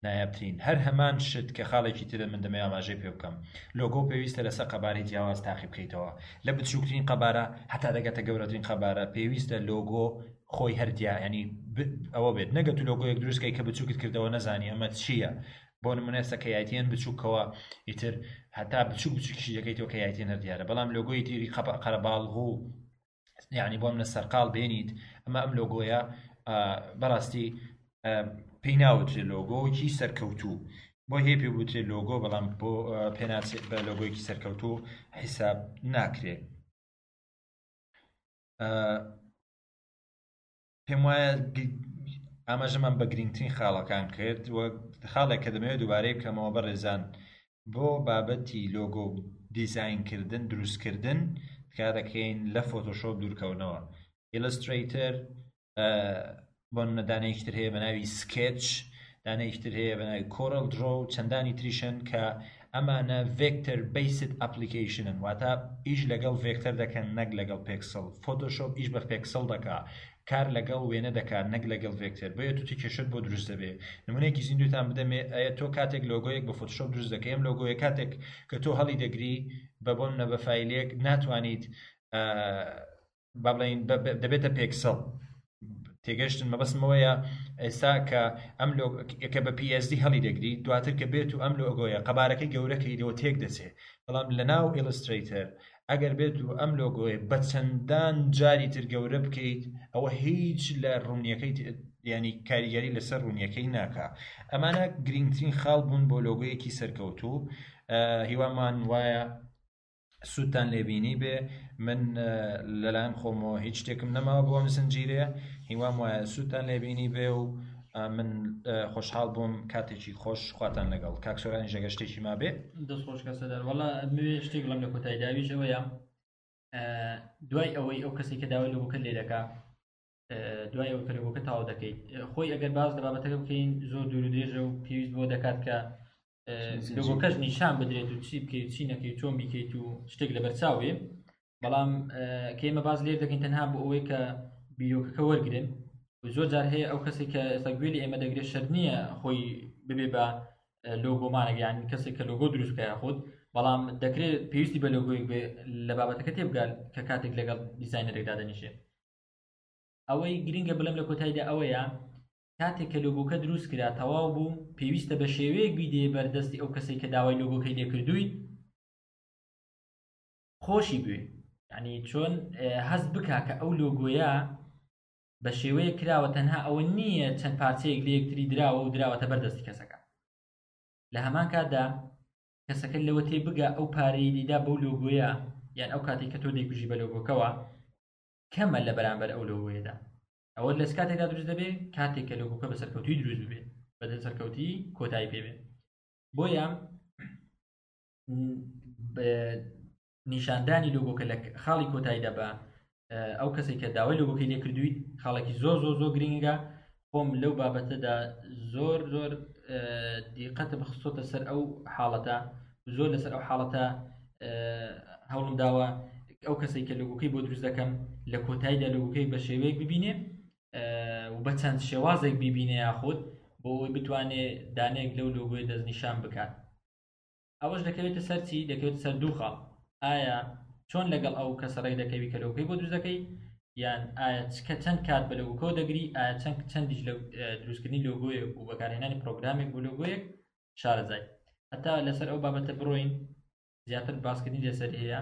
نایابترین هەر هەمان شت کە خاڵێکی ترە من دەمەوێ ئاماژەی پێ بکەم لۆگۆ پێویستە لەسەر قەبارەی جیاواز تاقی بکەیتەوە لە بچووکترین قەبارە هەتا دەگاتە گەورەترین قەبارە پێویستە لۆگۆ خۆی هەر دیا ینی ئەوە بێت نەگەت و لۆگۆیەک دروستکەی کە بچووکت کردەوە نەزانی ئەمە چییە بۆ نمونە ئێستا KITN بچووکەوە ئیتر هەتا بچوک بچووکیشی دەکەیتەوە KITN هەر دیارە بەڵام لۆگۆی تیری قەرەباڵغ و یعنی بۆ منە سەرقاڵ بێنیت ئەمە ئەم لۆگۆیە بەڕاستی پێی ناوترێ لۆگۆیەکی سەرکەوتوو بۆ هەیە پێ بوترێ لۆگۆ بەڵام بۆ پێناسێت بە لۆگۆیەکی سەرکەوتوو حیساب ناکرێ پێم وایە ئاماژەمان بە گرنگترین خاڵەکان کرد و خاڵێک کە دەمەوێت دووبارەی بکەمەوە بەڕێزان بۆ بابەتی لۆگۆ دیزاینکردن دروستکردن تکا دەکەین لە فۆتۆشۆپ دوورکەونەوە ئیلسترەیتەر. بۆ نمونە دانەیەکی تر هەیە بە ناوی سکێچ، دانەیەکی تر هەیە بە ناوی کۆرل درۆ و چەندانی تریشن کە ئەمانە ڤێکتەر بیسد ئەپلیکەیشنن، واتە ئیش لەگەڵ ڤێکتەر دەکەن نەک لەگەڵ پێکسڵ. فۆتۆشۆپ ئیش بە پێکسڵ دەکا، کار لەگەڵ وێنە دەکات نەک لەگەڵ ڤێکتەر، بۆیە تۆ کێشەت بۆ دروست دەبێ. نمونەیەکی زیندووتان بدەمێ، ئەیە تۆ کاتێک لۆگۆیەک بە فۆتۆشۆپ دروست دەکەی، ئەم لۆگۆیە کاتێک کە تۆ هەڵی دەگری بە بۆ نمونە بە فایلێک ناتوانیت با بڵێین دەبێتە پێکسڵ. تێگەشتن مەبەستم ئەوەیە ئێستا کە ئەم کە بە PSD هەڵی دەگری دواتر کە بێت و ئەم لۆگۆیە قەبارەکەی گەورەکەی لەوە تێک دەچێت، بەڵام لە ناو ئیلسترەیتەر ئەگەر بێت و ئەم لۆگۆیە بە چەندان جاری تر گەورە بکەیت ئەوە هیچ لە ڕوونیەکەی ینی کاریگەری لەسەر ڕوونیەکەی ناکا. ئەمانە گرنگترین خاڵ بوون بۆ لۆگۆیەکی سەرکەوتوو. هیوامان وایە سوودتان لێبینی بێ. من لەلایەن خۆمەوە هیچ شتێکم نەماوە بۆ ئەم زنجیرەیە، هیوام وایە سوودتان لێبینی بێ و من خۆشحاڵ بووم. کاتێکی خۆش خواتان لەگەڵ. کاک سۆرانیش ئەگەر شتێکی مابێ. دەست خۆش کاک سەردار. وەڵا ئەمەوێ شتێک بڵێم لە کۆتایی داویش ئەوەیە دوای ئەوەی ئەو کەسێک کە داوای لۆگۆکە لێ دەکا، دوای ئەوەی کە لۆگۆکە تەواو دەکەیت، خۆی ئەگەر باس لە بابەتەکە بکەین زۆر دوور و درێژە و پێویست بۆ دەکات کە لۆگۆکەش نیشان بدرێت و چی بکەیت چی نەکەیت چۆن بیکەیت و شتێک لەبەرچاو بێ. بەڵام کە ئێمە باس لێر دەکەین تەنها بۆ ئەوەی کە بیرۆکەکە وەرگن و زۆر جار هەیە ئەو کەسێک کە ئێستا گوێ لە ئێمە دەگرێت شەرت نییە خۆی ببێ بە لۆگۆمانێک، یان کەسێک کە لۆگۆ دروست بکە یاخود، بەڵام دەکرێت پێویستی بە لۆگۆیەک بێ لە بابەتەکە تێبگات کە کاتێک لەگەڵ دیزاینەرێک دادەنیشێ. ئەوەی گرنگە بڵێم لە کۆتاییدا ئەوەیە کاتێک کە لۆگۆکە دروست کرا تەواو بوو، پێویستە بە شێوەیەک بیدێ بەردەستی ئەو کەسێک کە داوای لۆگۆکەی لێکردوویت خۆشی بوێ، یعنی چۆن هەست بکا کە ئەو لۆگۆیە بە شێوەیەک کراوە تەنها ئەوە نییە چەند پارچەیەک لە یەکتری دراوە و دراوەتە بەردەستی کەسەکە. لە هەمان کاتدا کەسەکە لەوە تێ بگا ئەو پارەی دیدا بەو لۆگۆیە، یان ئەو کاتێک کە تۆ دەیکوژی بە لۆگۆکەوە کەمە لە بەرامبەر ئەو لۆگۆیەدا. ئەوە لە کاتێکدا دروست دەبێت کاتێک کە لۆگۆکە بە سەرکەوتووی دروست ببێت، بە سەرکەوتی کۆتایی پێ بێت. بۆیە نیشاندانی لۆگۆکە لە خاڵی کۆتاییدا بە ئەو کەسێک کە داوای لۆگۆکەی لێ کردوویت خاڵێکی زۆر زۆر زۆر گرنگە. خۆم لەو بابەتەدا زۆر زۆر دیقەتم خستۆتە سەر ئەو حاڵەتە، زۆر لەسەر ئەو حاڵەتە هەوڵم داوە ئەو کەسێک کە لۆگۆکەی بۆ دروست دەکەم لە کۆتاییدا لۆگۆکەی بە شێوەیەک ببینێ و بە چەند شێوازێک ببینێ یاخود بۆ ئەوەی بتوانێ دانەیەک لەو لۆگۆی دەستنیشان بکات. ئەوەش دەکەوێتە سەر چی؟ دەکەوێتە سەر دوو خاڵ. ئایا چۆن لەگەڵ ئەو کەسە ڕێک دەکەوی کە لۆگۆکەی بۆ دروست دەکەی، یان ئایا کە چەند کات بە لۆگۆکەوە دەگری، ئایا چەندیش لە دروستکردنی لۆگۆیەک و بەکارهێنانی پرۆگرامێک بۆ لۆگۆیەک شارەزای. هەتا لەسەر ئەو بابەتە بڕۆین زیاتر باسکردنی لەسەر هەیە.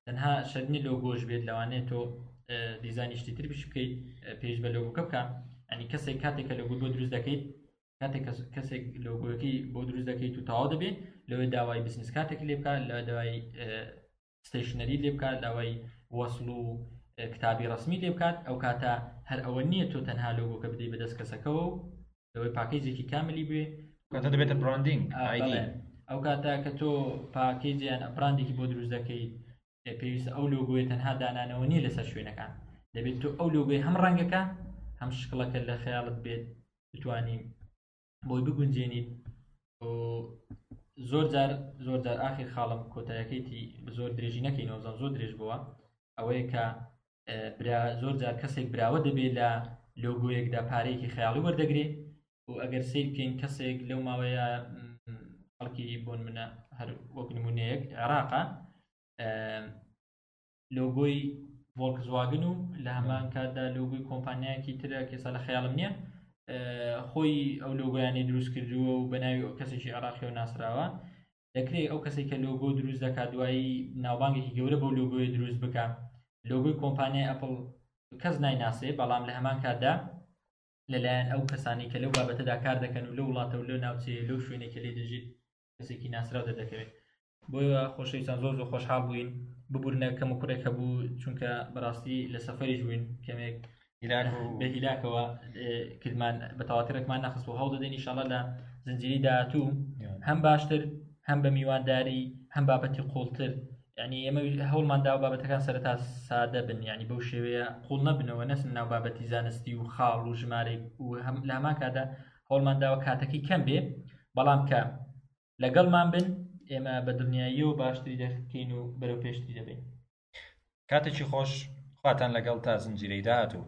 تەنها شەرنی لۆگۆش بێت، لەوانەیە تۆ دیزانی شتی تر بش بکەیت پێش بە لۆگۆکە بکە. ینی کەسێک کاتێک کە لۆگۆ بۆ دروست دەکەیت، کاتێک کەسێک لۆگۆیەکەی بۆ دروست دەکەیت و تەواو دەبێت، لەوێ داوای بزنس کارتێک لێ بکات، لە داوای ستەیشنەری لێ بکات، داوای وەسڵ و کتابی ڕسمی لێ بکات. ئەو کاتە هەر ئەوە نییە تۆ تەنها لۆگۆکە بدەیت بەدەست کەسەکەوە و لەوەی پاکێجێکی کاملی بێ، کاتە دەبێتە براندینگ ئایدی. ئەو کاتە کە تۆ پاکێجیان براندێکی بۆ دروست دەکەیت، پێویستە ئەو لۆگۆیە تەنها دانانەوە نییە لەسەر شوێنەکان، دەبێت تۆ ئەو لۆگۆی هەم ڕەنگەکە هەم شکڵەکە لە خەیاڵت بێت بتانی بۆی بگونجێنیت. زۆر جار زۆر جار ئاخیر خاڵم کۆتایەکەیتی زۆر درێژی نەکەینەوە، زۆر زۆر درێژ بووە، ئەوەیە کە زۆر جار کەسێک براوە دەبێت لە لۆگۆیەکدا پارەیەکی خەیاڵی وەردەگرێ و ئەگەر سەیر بکەین کەسێک لەو ماوەیە خەڵکی بۆن منە هەر وەک نمونەیەک عێراقە لۆگۆی ڤۆڵکسواگن و لە هەمان کاتدا لۆگۆی کۆمپانیایەکی ترە کە ئێستا لە خەیاڵم نییە، خۆی ئەو لۆگۆیانی دروست کردووە و بە ناوی کەسێکی عێراقیەوە ناسراوە. دەکرێت ئەو کەسێک کە لۆگۆ دروست دەکات دوایی ناوبانگێکی گەورە بەو لۆگۆیە دروست بکە. لۆگۆی کۆمپانیای ئەپڵ کەس نایناسێ، بەڵام لە هەمان کاتدا لەلایەن ئەو کەسانی کە لەو بابەتەدا کار دەکەن و لەو وڵاتە و لەو ناوچەیە لەو شوێنێک کە لێ دەژیت کەسێکی ناسراو دەردەکەوێت. بۆیە خۆشەویستان زۆر زۆر خۆشحاڵ بووین، ببورنە کەم و کوڕێک هەبوو چونکە بەڕاستی لە سەفەریش بووین کەمێک بە هیلاکەوە کردمان بە تەواتی ڕێکمان نەخست و هەوڵ دەدەین ئینشاڵڵا لە زنجیری داهاتوو هەم باشتر هەم بە میوانداری هەم بابەتی قوڵتر. یعنی ئێمە هەوڵمان داوە بابەتەکان سەرەتا سادە بن یعنی بەو شێوەیە قوڵ نەبنەوە نەچن ناو بابەتی زانستی و خاڵ و ژمارەی و هەم لە هەمان کاتدا هەوڵمان داوە کاتەکەی کەم بێ بەڵام کە لەگەڵمان بن ئێمە بە دڵنیاییەوە باشتری دەکەین و بەرەو پێشتری دەبین. کاتێکی خۆش خواتان لەگەڵ تا زنجیرەی داهاتوو.